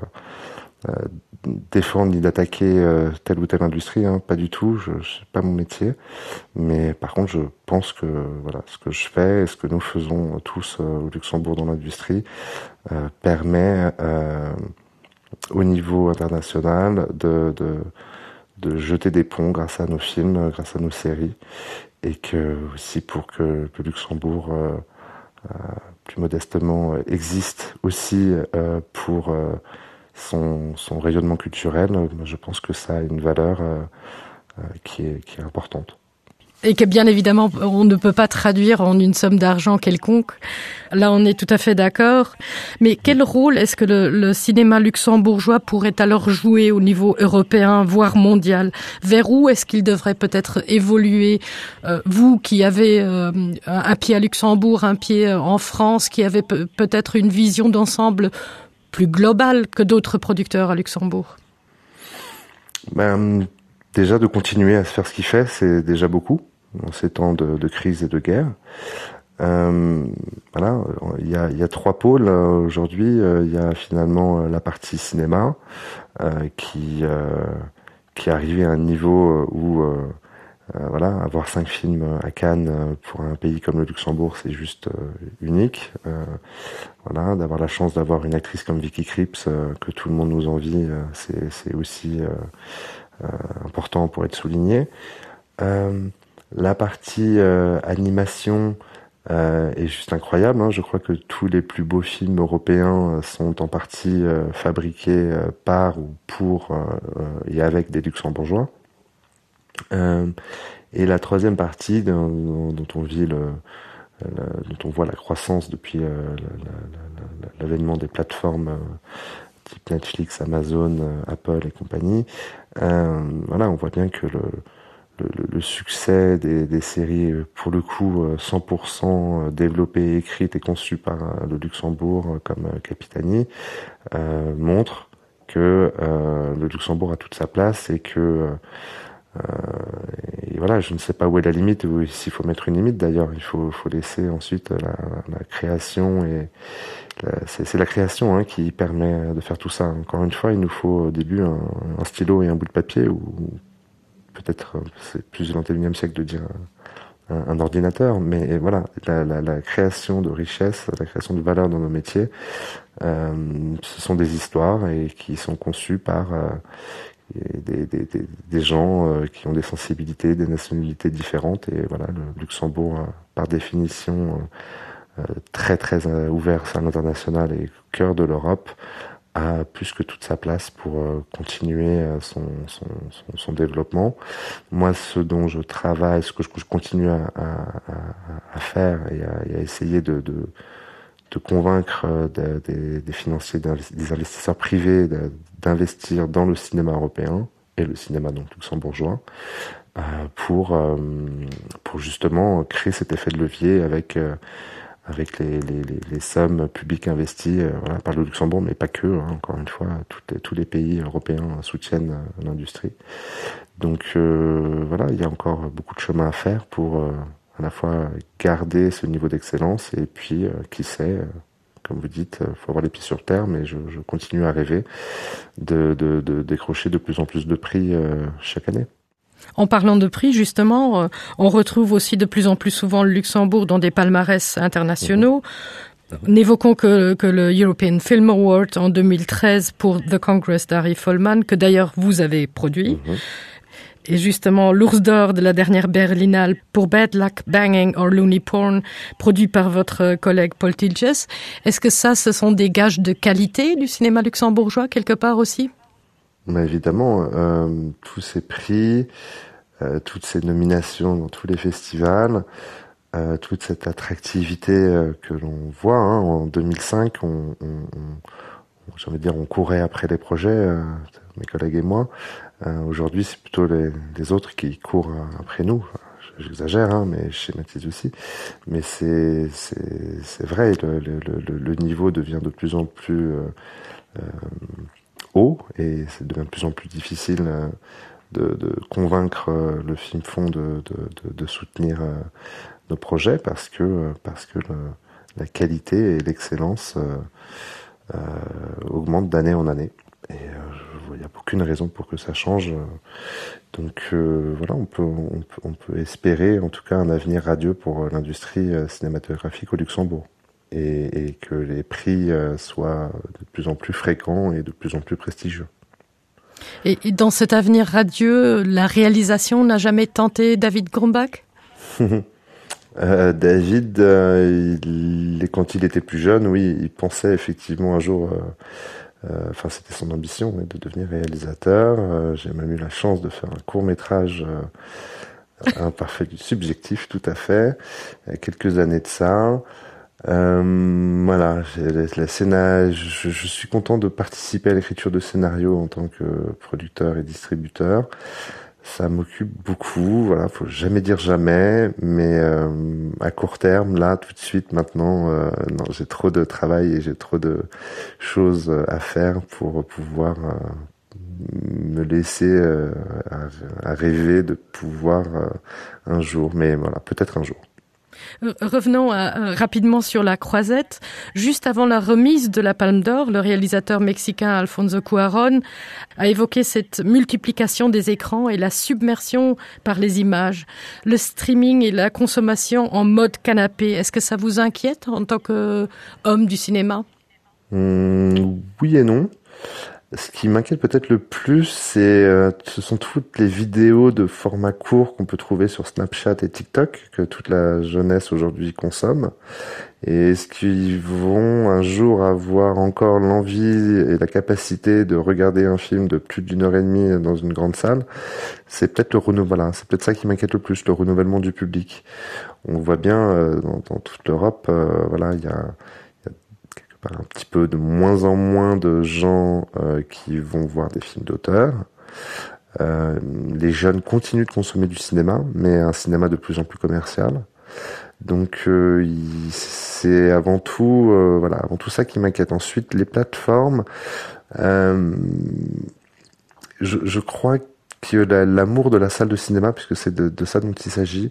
euh, défendre ni d'attaquer euh, telle ou telle industrie hein, pas du tout je, je pas mon métier mais par contre je pense que voilà ce que je fais et ce que nous faisons tous euh, au Luxembourg dans l'industrie euh, permet euh, au niveau international de, de de jeter des ponts grâce à nos films grâce à nos séries et que aussi pour que, que Luxembourg euh, euh, plus modestement existe aussi euh, pour euh, son, son rayonnement culturel, je pense que ça a une valeur euh, euh, qui, est, qui est importante et que bien évidemment on ne peut pas traduire en une somme d'argent quelconque. Là on est tout à fait d'accord. Mais quel rôle est-ce que le, le cinéma luxembourgeois pourrait alors jouer au niveau européen, voire mondial Vers où est-ce qu'il devrait peut-être évoluer euh, vous qui avez euh, un pied à Luxembourg, un pied euh, en France, qui avez peut-être une vision d'ensemble plus globale que d'autres producteurs à Luxembourg ben, Déjà de continuer à se faire ce qu'il fait, c'est déjà beaucoup dans ces temps de, de crise et de guerre. Euh, voilà, il y a, il y a trois pôles euh, aujourd'hui. Euh, il y a finalement euh, la partie cinéma euh, qui, euh, qui est arrivée à un niveau où euh, euh, voilà, avoir cinq films à Cannes pour un pays comme le Luxembourg, c'est juste euh, unique. Euh, voilà, d'avoir la chance d'avoir une actrice comme Vicky Krieps euh, que tout le monde nous envie, euh, c'est aussi euh, euh, important pour être souligné. Euh, la partie euh, animation euh, est juste incroyable. Hein. Je crois que tous les plus beaux films européens euh, sont en partie euh, fabriqués euh, par ou pour euh, euh, et avec des luxembourgeois. Euh, et la troisième partie dont, dont on vit le, le, dont on voit la croissance depuis euh, l'avènement des plateformes euh, type Netflix, Amazon, euh, Apple et compagnie, euh, voilà, on voit bien que le, le, le succès des, des séries pour le coup 100% euh, développées, écrites et conçues par euh, le Luxembourg comme Capitani euh, montre que euh, le Luxembourg a toute sa place et que euh, et voilà, je ne sais pas où est la limite ou s'il faut mettre une limite d'ailleurs, il faut, faut laisser ensuite la, la création et c'est la création hein, qui permet de faire tout ça. Encore une fois, il nous faut au début un, un stylo et un bout de papier ou peut-être c'est plus du 21e siècle de dire un, un, un ordinateur, mais voilà la, la, la création de richesse, la création de valeur dans nos métiers, euh, ce sont des histoires et qui sont conçues par euh, des, des, des, des gens euh, qui ont des sensibilités, des nationalités différentes et voilà le Luxembourg euh, par définition euh, euh, très très euh, ouvert à l'international et cœur de l'Europe a plus que toute sa place pour euh, continuer euh, son, son, son, son développement. Moi, ce dont je travaille, ce que je, je continue à, à, à, à faire et à, et à essayer de, de, de convaincre euh, de, des, des financiers, des investisseurs privés d'investir dans le cinéma européen et le cinéma donc luxembourgeois euh, pour, euh, pour justement créer cet effet de levier avec euh, avec les, les, les, les sommes publiques investies euh, voilà, par le Luxembourg, mais pas que, hein, encore une fois, toutes les, tous les pays européens soutiennent euh, l'industrie. Donc euh, voilà, il y a encore beaucoup de chemin à faire pour euh, à la fois garder ce niveau d'excellence et puis, euh, qui sait, euh, comme vous dites, il faut avoir les pieds sur terre, mais je, je continue à rêver de, de, de décrocher de plus en plus de prix euh, chaque année. En parlant de prix, justement, euh, on retrouve aussi de plus en plus souvent le Luxembourg dans des palmarès internationaux. Mmh. N'évoquons que, que le European Film Award en 2013 pour The Congress d'Harry Follman, que d'ailleurs vous avez produit. Mmh. Et justement l'ours d'or de la dernière Berlinale pour Bad Luck Banging or Looney Porn, produit par votre collègue Paul Tilges. Est-ce que ça, ce sont des gages de qualité du cinéma luxembourgeois quelque part aussi? Mais évidemment, euh, tous ces prix, euh, toutes ces nominations dans tous les festivals, euh, toute cette attractivité euh, que l'on voit hein, en 2005, on, on, on, j'ai envie de dire on courait après les projets, euh, mes collègues et moi. Euh, Aujourd'hui, c'est plutôt les, les autres qui courent après nous. J'exagère, mais je schématise aussi. Mais c'est vrai, le, le, le, le niveau devient de plus en plus euh, euh, haut et c'est devient de plus en plus difficile euh, de, de convaincre euh, le film fond de, de, de, de soutenir euh, nos projets parce que, euh, parce que le, la qualité et l'excellence euh, euh, augmentent d'année en année. Et euh, il n'y a aucune raison pour que ça change. Donc euh, voilà, on peut, on, peut, on peut espérer en tout cas un avenir radieux pour euh, l'industrie euh, cinématographique au Luxembourg et, et que les prix euh, soient de plus en plus fréquents et de plus en plus prestigieux. Et, et dans cet avenir radieux, la réalisation n'a jamais tenté David Grumbach euh, David, euh, il, quand il était plus jeune, oui, il pensait effectivement un jour euh, Euh, enfin c'était son ambition ouais, de devenir réalisateur. Euh, j'ai même eu la chance de faire un court métrage euh, imparfait du subjectif tout à fait quelques années de ça. Euh, voilà la, la scéna je, je suis content de participer à l'écriture de scénarios en tant que producteur et distributeur. Ça m'occupe beaucoup voilà faut jamais dire jamais mais euh, à court terme là tout de suite maintenant euh, non j'ai trop de travail et j'ai trop de choses à faire pour pouvoir euh, me laisser euh, à, à rêver de pouvoir euh, un jour mais voilà peut-être un jour. Euh, revenons à, euh, rapidement sur la croisette. Juste avant la remise de la Palme d'Or, le réalisateur mexicain Alfonso Cuarón a évoqué cette multiplication des écrans et la submersion par les images. Le streaming et la consommation en mode canapé, est-ce que ça vous inquiète en tant qu'homme du cinéma mmh, Oui et non. Ce qui m'inquiète peut-être le plus, c'est euh, ce sont toutes les vidéos de format court qu'on peut trouver sur Snapchat et TikTok que toute la jeunesse aujourd'hui consomme. Et est-ce qu'ils vont un jour avoir encore l'envie et la capacité de regarder un film de plus d'une heure et demie dans une grande salle? C'est peut-être le renouvellement, c'est peut-être ça qui m'inquiète le plus, le renouvellement du public. On voit bien euh, dans, dans toute l'Europe, euh, voilà, il y a un petit peu de moins en moins de gens euh, qui vont voir des films d'auteur. Euh, les jeunes continuent de consommer du cinéma, mais un cinéma de plus en plus commercial. Donc euh, c'est avant tout euh, voilà avant tout ça qui m'inquiète. Ensuite les plateformes euh, je, je crois que l'amour la, de la salle de cinéma, puisque c'est de, de ça dont il s'agit,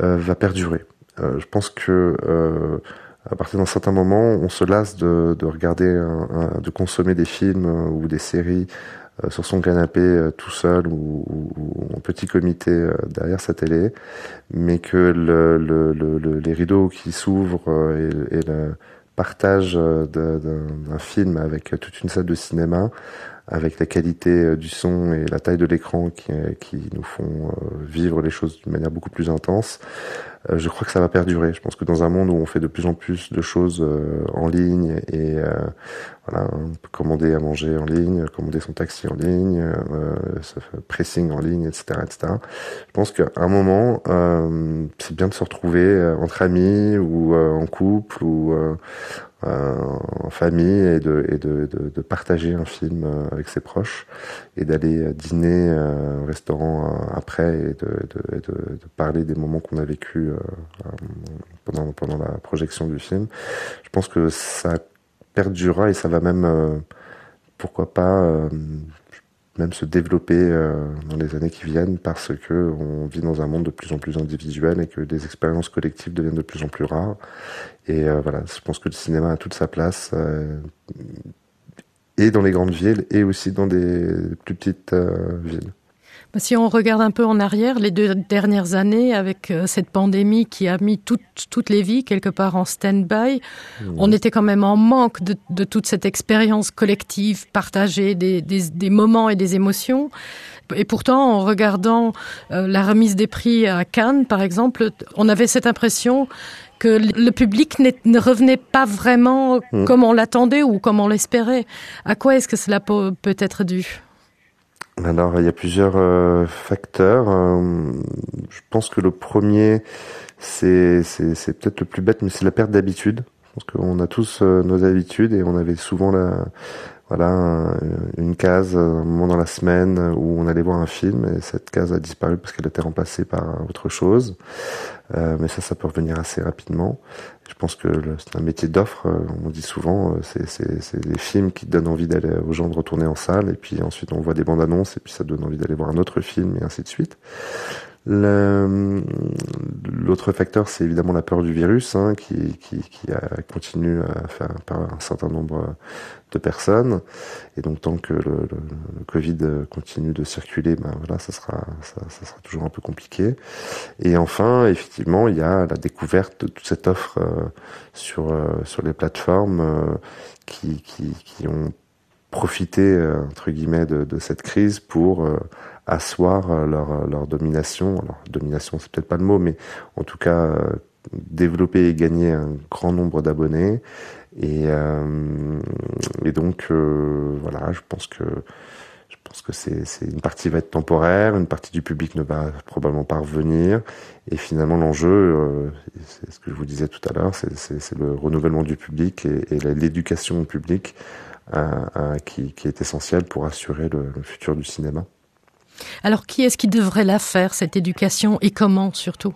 euh, va perdurer. Euh, je pense que euh, à partir d'un certain moment, on se lasse de, de regarder un, un, de consommer des films euh, ou des séries euh, sur son canapé euh, tout seul ou, ou, ou en petit comité euh, derrière sa télé, mais que le, le, le, le, les rideaux qui s'ouvrent euh, et, et le partage euh, d'un film avec toute une salle de cinéma, avec la qualité du son et la taille de l'écran qui, qui nous font vivre les choses d'une manière beaucoup plus intense, Euh, je crois que ça va perdurer. Je pense que dans un monde où on fait de plus en plus de choses euh, en ligne et euh, voilà, on peut commander à manger en ligne, commander son taxi en ligne, euh, pressing en ligne, etc. etc. Je pense qu'à un moment, euh, c'est bien de se retrouver euh, entre amis ou euh, en couple ou euh, euh, en famille et de, et de, de, de partager un film euh, avec ses proches et d'aller euh, dîner euh, au restaurant euh, après et de, de, de, de parler des moments qu'on a vécu euh, pendant, pendant la projection du film. Je pense que ça perdurera et ça va même euh, pourquoi pas euh, même se développer euh, dans les années qui viennent parce que on vit dans un monde de plus en plus individuel et que des expériences collectives deviennent de plus en plus rares. Et euh, voilà, je pense que le cinéma a toute sa place euh, et dans les grandes villes et aussi dans des plus petites euh, villes. Si on regarde un peu en arrière les deux dernières années avec euh, cette pandémie qui a mis toute, toutes les vies quelque part en stand-by, mmh. on était quand même en manque de, de toute cette expérience collective partagée des, des, des moments et des émotions. Et pourtant, en regardant euh, la remise des prix à Cannes, par exemple, on avait cette impression que le public ne revenait pas vraiment mmh. comme on l'attendait ou comme on l'espérait. À quoi est-ce que cela peut, peut être dû? Alors il y a plusieurs euh, facteurs. Euh, je pense que le premier c'est peut-être le plus bête, mais c'est la perte d'habitude. Je pense qu'on a tous euh, nos habitudes et on avait souvent la. voilà, une case un moment dans la semaine où on allait voir un film et cette case a disparu parce qu'elle était remplacée par autre chose. Euh, mais ça, ça peut revenir assez rapidement. Je pense que c'est un métier d'offre, euh, on dit souvent, euh, c'est des films qui donnent envie d'aller aux gens de retourner en salle et puis ensuite on voit des bandes annonces et puis ça donne envie d'aller voir un autre film et ainsi de suite. L'autre facteur, c'est évidemment la peur du virus hein, qui, qui, qui a, continue à faire par un certain nombre de personnes. Et donc tant que le, le, le Covid continue de circuler, ben voilà, ça sera, ça, ça sera toujours un peu compliqué. Et enfin, effectivement, il y a la découverte de toute cette offre euh, sur, euh, sur les plateformes euh, qui, qui, qui ont profité euh, entre guillemets de, de cette crise pour euh, asseoir euh, leur, euh, leur domination alors domination c'est peut-être pas le mot mais en tout cas euh, développer et gagner un grand nombre d'abonnés et, euh, et donc euh, voilà je pense que je pense que c'est une partie va être temporaire une partie du public ne va probablement pas revenir et finalement l'enjeu euh, c'est ce que je vous disais tout à l'heure c'est le renouvellement du public et, et l'éducation publique euh, euh, qui, qui est essentiel pour assurer le, le futur du cinéma. Alors qui est-ce qui devrait la faire cette éducation et comment surtout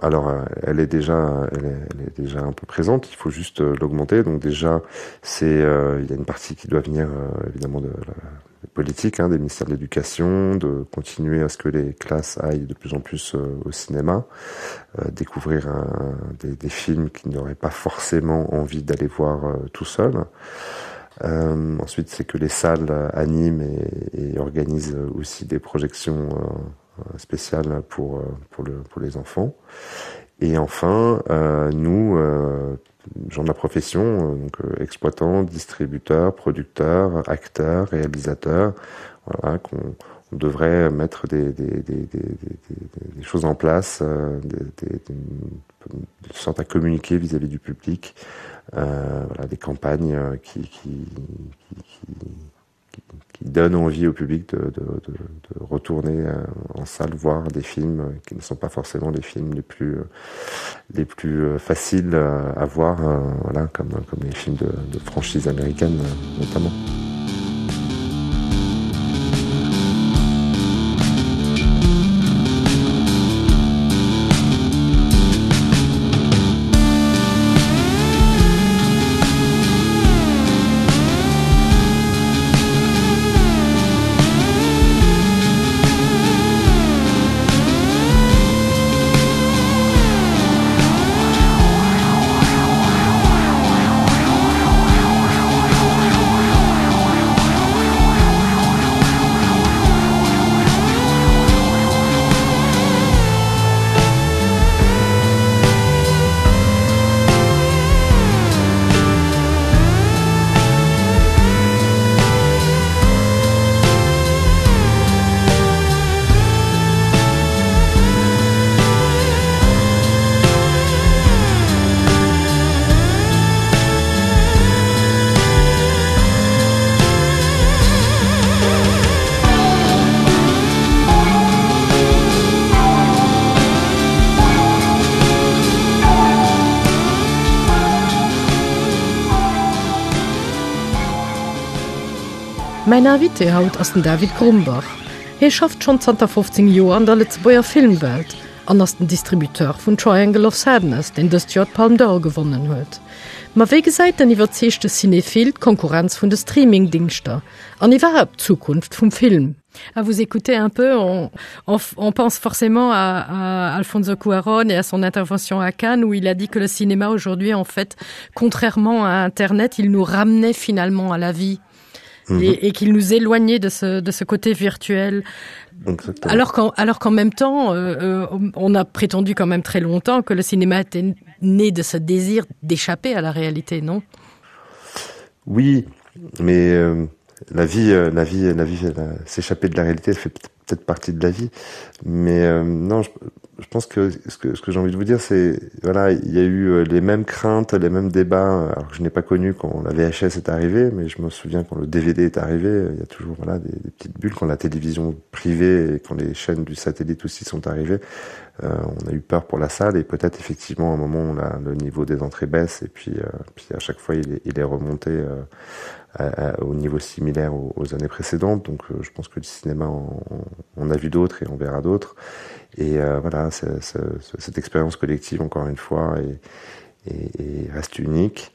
Alors euh, elle est déjà elle est, elle est déjà un peu présente, il faut juste euh, l'augmenter. Donc déjà c'est euh, il y a une partie qui doit venir euh, évidemment de la politique hein, des ministères de l'éducation, de continuer à ce que les classes aillent de plus en plus euh, au cinéma, euh, découvrir un, des, des films qui n'auraient pas forcément envie d'aller voir euh, tout seul. Euh, ensuite, c'est que les salles animent et, et organisent aussi des projections euh, spéciales pour, euh, pour, le, pour les enfants. Et enfin, euh, nous, euh, gens de la profession, euh, donc euh, exploitants, distributeurs, producteurs, acteurs, réalisateurs, voilà, qu'on on devrait mettre des, des, des, des, des, des choses en place, euh, des, des, des, de sorte à communiquer vis-à-vis -vis du public, euh, voilà, des campagnes euh, qui, qui, qui, qui, qui donnent envie au public de, de, de, de retourner euh, en salle voir des films qui ne sont pas forcément les films les plus, euh, les plus faciles à voir, voilà, comme, comme les films de, de franchise américaine notamment. Mäin Invité haut ass den David Grumbach. Hie schafft schonn zanter 15 Joer an der Lëtzebuerger Filmwelt an ass den Distributeur vun Triangle of Sadness, deen dëst Joer d'Palme d'Or gewonnen huet. Ma wéi gesäit den iwwerzeegte Cinephil d'Konkurrenz vun de Streamingdingschter an iwwerhaapt d'Zukunft vum Film? À vous écouter un peu, on, on, on pense forcément à, à Alfonso Cuaron et à son intervention à Cannes où il a dit que le cinéma aujourd'hui, en fait, contrairement à Internet, il nous ramenait finalement à la vie mmh. et, et qu'il nous éloignait de ce, de ce côté virtuel. Exactement. Alors qu'en alors qu'en même temps, euh, euh, on a prétendu quand même très longtemps que le cinéma était né de ce désir d'échapper à la réalité, non Oui, mais euh, la vie, euh, la vie, la vie, s'échapper de la réalité, elle fait peut-être partie de la vie. Mais euh, non, je... je pense que ce que, ce que j'ai envie de vous dire c'est voilà il y a eu euh, les mêmes craintes les mêmes débats alors que je n'ai pas connu quand la VHS est arrivée mais je me souviens quand le DVD est arrivé il y a toujours voilà des, des petites bulles quand la télévision privée et quand les chaînes du satellite aussi sont arrivées euh, on a eu peur pour la salle et peut-être effectivement un moment où la, le niveau des entrées baisse et puis euh, puis à chaque fois il est, il est remonté euh, à, à, au niveau similaire aux, aux années précédentes donc euh, je pense que le cinéma on, on a vu d'autres et on verra d'autres et euh, voilà c'est, c'est, cette expérience collective encore une fois et, et, et reste unique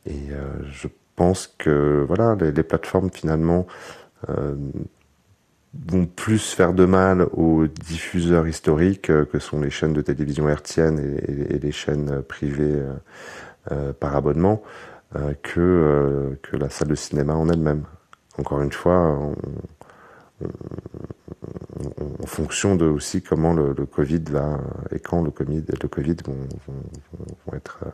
et euh, je pense que voilà les, les plateformes finalement euh, vont plus faire de mal aux diffuseurs historiques euh, que sont les chaînes de télévision hertzienne et, et, et les chaînes privées euh, euh, par abonnement euh, que, euh, que la salle de cinéma en elle-même. Encore une fois, on, on, on, en fonction de aussi comment le, le COVID va et quand le COVID, le COVID vont, vont, vont, vont être euh,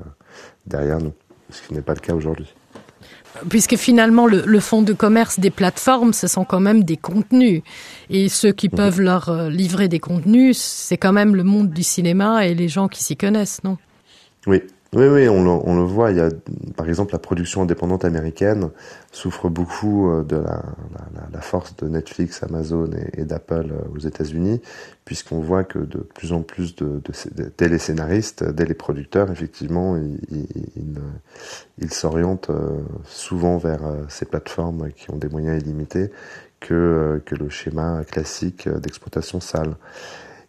derrière nous, ce qui n'est pas le cas aujourd'hui. Puisque finalement le, le fonds de commerce des plateformes, ce sont quand même des contenus. Et ceux qui mmh. peuvent leur euh, livrer des contenus, c'est quand même le monde du cinéma et les gens qui s'y connaissent, non Oui, Oui, oui, on le, on le voit. Il y a, par exemple, la production indépendante américaine souffre beaucoup euh, de la, la, la force de Netflix, Amazon et, et d'Apple euh, aux États-Unis, puisqu'on voit que de plus en plus de, de, de téléscénaristes, dès les producteurs, effectivement, ils, ils, ils, ils s'orientent euh, souvent vers ces plateformes qui ont des moyens illimités que, que le schéma classique d'exploitation salle.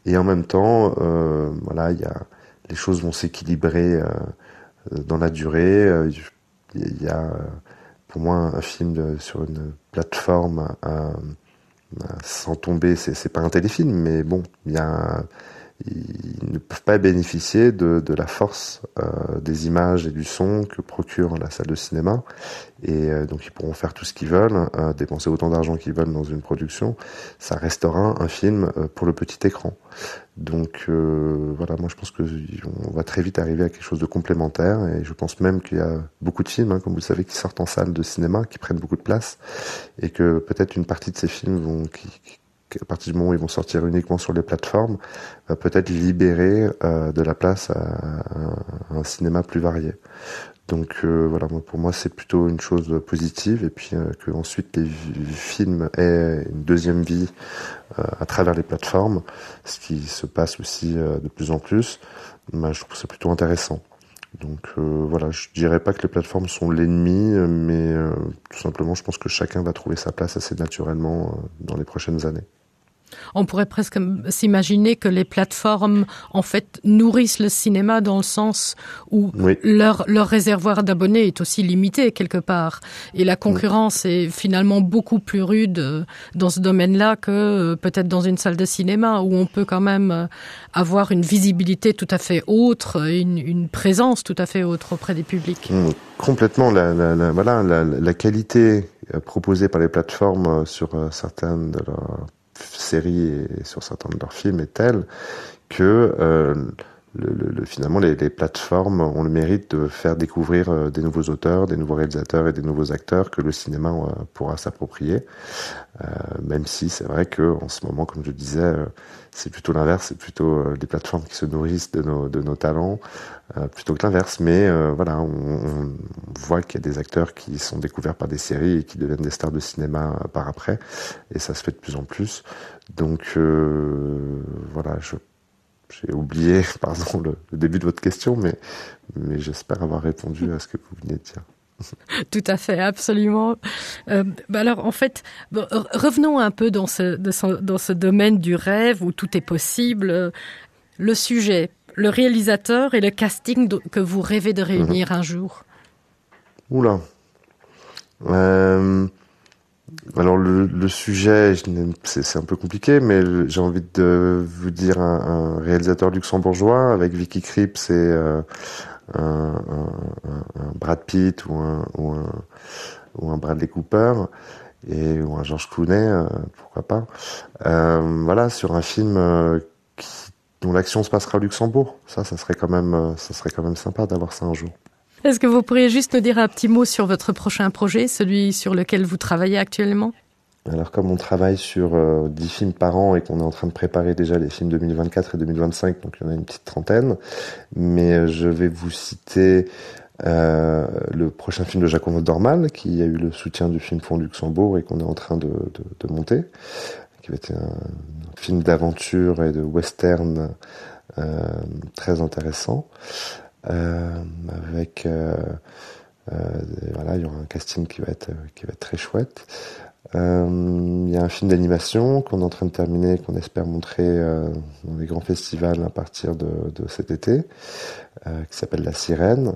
Et en même temps, euh, voilà, il y a les choses vont s'équilibrer euh, dans la durée. Euh, il y a euh, pour moi un film de, sur une plateforme euh, sans tomber, c'est pas un téléfilm, mais bon, il y a ils ne peuvent pas bénéficier de, de la force euh, des images et du son que procure la salle de cinéma et euh, donc ils pourront faire tout ce qu'ils veulent euh, dépenser autant d'argent qu'ils veulent dans une production ça restera un film euh, pour le petit écran donc euh, voilà moi je pense que on va très vite arriver à quelque chose de complémentaire et je pense même qu'il y a beaucoup de films hein, comme vous le savez qui sortent en salle de cinéma qui prennent beaucoup de place et que peut-être une partie de ces films vont qui, qui à partir du moment où ils vont sortir uniquement sur les plateformes va peut-être libérer euh, de la place à, à, à un cinéma plus varié donc euh, voilà moi pour moi c'est plutôt une chose positive et puis euh, que ensuite les films aient une deuxième vie euh, à travers les plateformes ce qui se passe aussi euh, de plus en plus ben, je trouve c'est plutôt intéressant donc euh, voilà je dirais pas que les plateformes sont l'ennemi mais euh, tout simplement je pense que chacun va trouver sa place assez naturellement euh, dans les prochaines années On pourrait presque s'imaginer que les plateformes en fait nourrissent le cinéma dans le sens où oui. leur, leur réservoir d'abonnés est aussi limité quelque part et la concurrence oui. est finalement beaucoup plus rude euh, dans ce domaine-là que euh, peut-être dans une salle de cinéma où on peut quand même euh, avoir une visibilité tout à fait autre, une, une présence tout à fait autre auprès des publics. Mmh, complètement la, la, la, voilà, la, la qualité proposée par les plateformes sur certaines de leurs séries et sur certains de leurs films est telle que euh, le, le, le, finalement les, les plateformes ont le mérite de faire découvrir euh, des nouveaux auteurs, des nouveaux réalisateurs et des nouveaux acteurs que le cinéma euh, pourra s'approprier. Euh, même si c'est vrai que en ce moment, comme je disais, euh, c'est plutôt l'inverse, c'est plutôt euh, les plateformes qui se nourrissent de nos, de nos talents euh, plutôt que l'inverse. Mais euh, voilà, on, on voit qu'il y a des acteurs qui sont découverts par des séries et qui deviennent des stars de cinéma euh, par après et ça se fait de plus en plus. Donc euh, voilà, je j'ai oublié pardon le, le début de votre question mais mais j'espère avoir répondu à ce que vous venez de dire tout à fait absolument euh, bah alors en fait bon, revenons un peu dans ce, de ce dans ce domaine du rêve où tout est possible le sujet le réalisateur et le casting que vous rêvez de réunir mmh. un jour oula euh Alors le, le sujet c'est un peu compliqué mais j'ai envie de vous dire un, un réalisateur luxembourgeois avec Vicky Cripps et euh, un, un, un Brad Pitt ou un, ou un, ou un Bradley Cooper et ou un George Clooney euh, pourquoi pas euh, voilà sur un film euh, qui, dont l'action se passera au Luxembourg ça ça serait quand même euh, ça serait quand même sympa d'avoir ça un jour. Est-ce que vous pourriez juste nous dire un petit mot sur votre prochain projet, celui sur lequel vous travaillez actuellement? Alors comme on travaille sur euh, 10 films par an et qu'on est en train de préparer déjà les films 2024 et 2025, donc il y en a une petite trentaine, mais euh, je vais vous citer euh, le prochain film de Jacques Dormal qui a eu le soutien du film Fonds Luxembourg et qu'on est en train de, de, de monter, qui va être un, un film d'aventure et de western euh, très intéressant euh, avec euh, euh, voilà, il y aura un casting qui va être, qui va être très chouette. Euh, il y a un film d'animation qu'on est en train de terminer, qu'on espère montrer euh, dans les grands festivals à partir de, de cet été, euh, qui s'appelle La Sirène.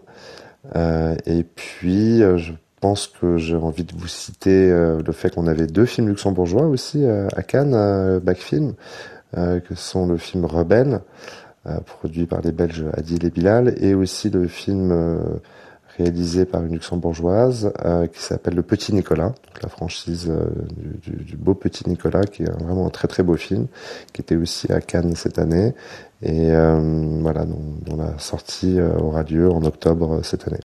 Euh, et puis euh, je pense que j'ai envie de vous citer euh, le fait qu'on avait deux films luxembourgeois aussi euh, à Cannes, euh, Backfilm, euh, que sont le film Rebelle, euh, produit par les Belges Adil et Bilal, et aussi le film euh, réalisé par une luxembourgeoise euh, qui s'appelle le petit Nicolas, donc la franchise euh, du, du, du beau petit Nicolas qui est vraiment un très très beau film qui était aussi à Cannes cette année et euh, voilà dont, dont la sortie euh, aura lieu en octobre euh, cette année.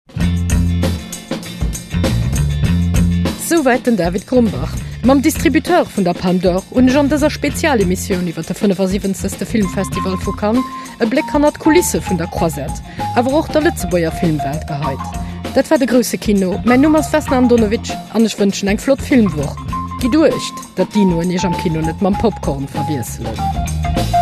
Souwäit den David Grumbach. Mam Distributeur vun der Palme d'Or hunn ech an dëser Spezialemissioun iwwer de 75. Filmfestival vu Cannes e Bléck hannert d'Kulisse vun der Croisette, awer och der Lëtzebuerger Filmwelt geheit. Dat war de grousse Kino. Mäin Numm ass Vesna Andonovic an ech wënschen eng flott Filmwoch. Gitt uecht, datt d'Dinoen iech am Kino net mam Popcorn verwiesselen.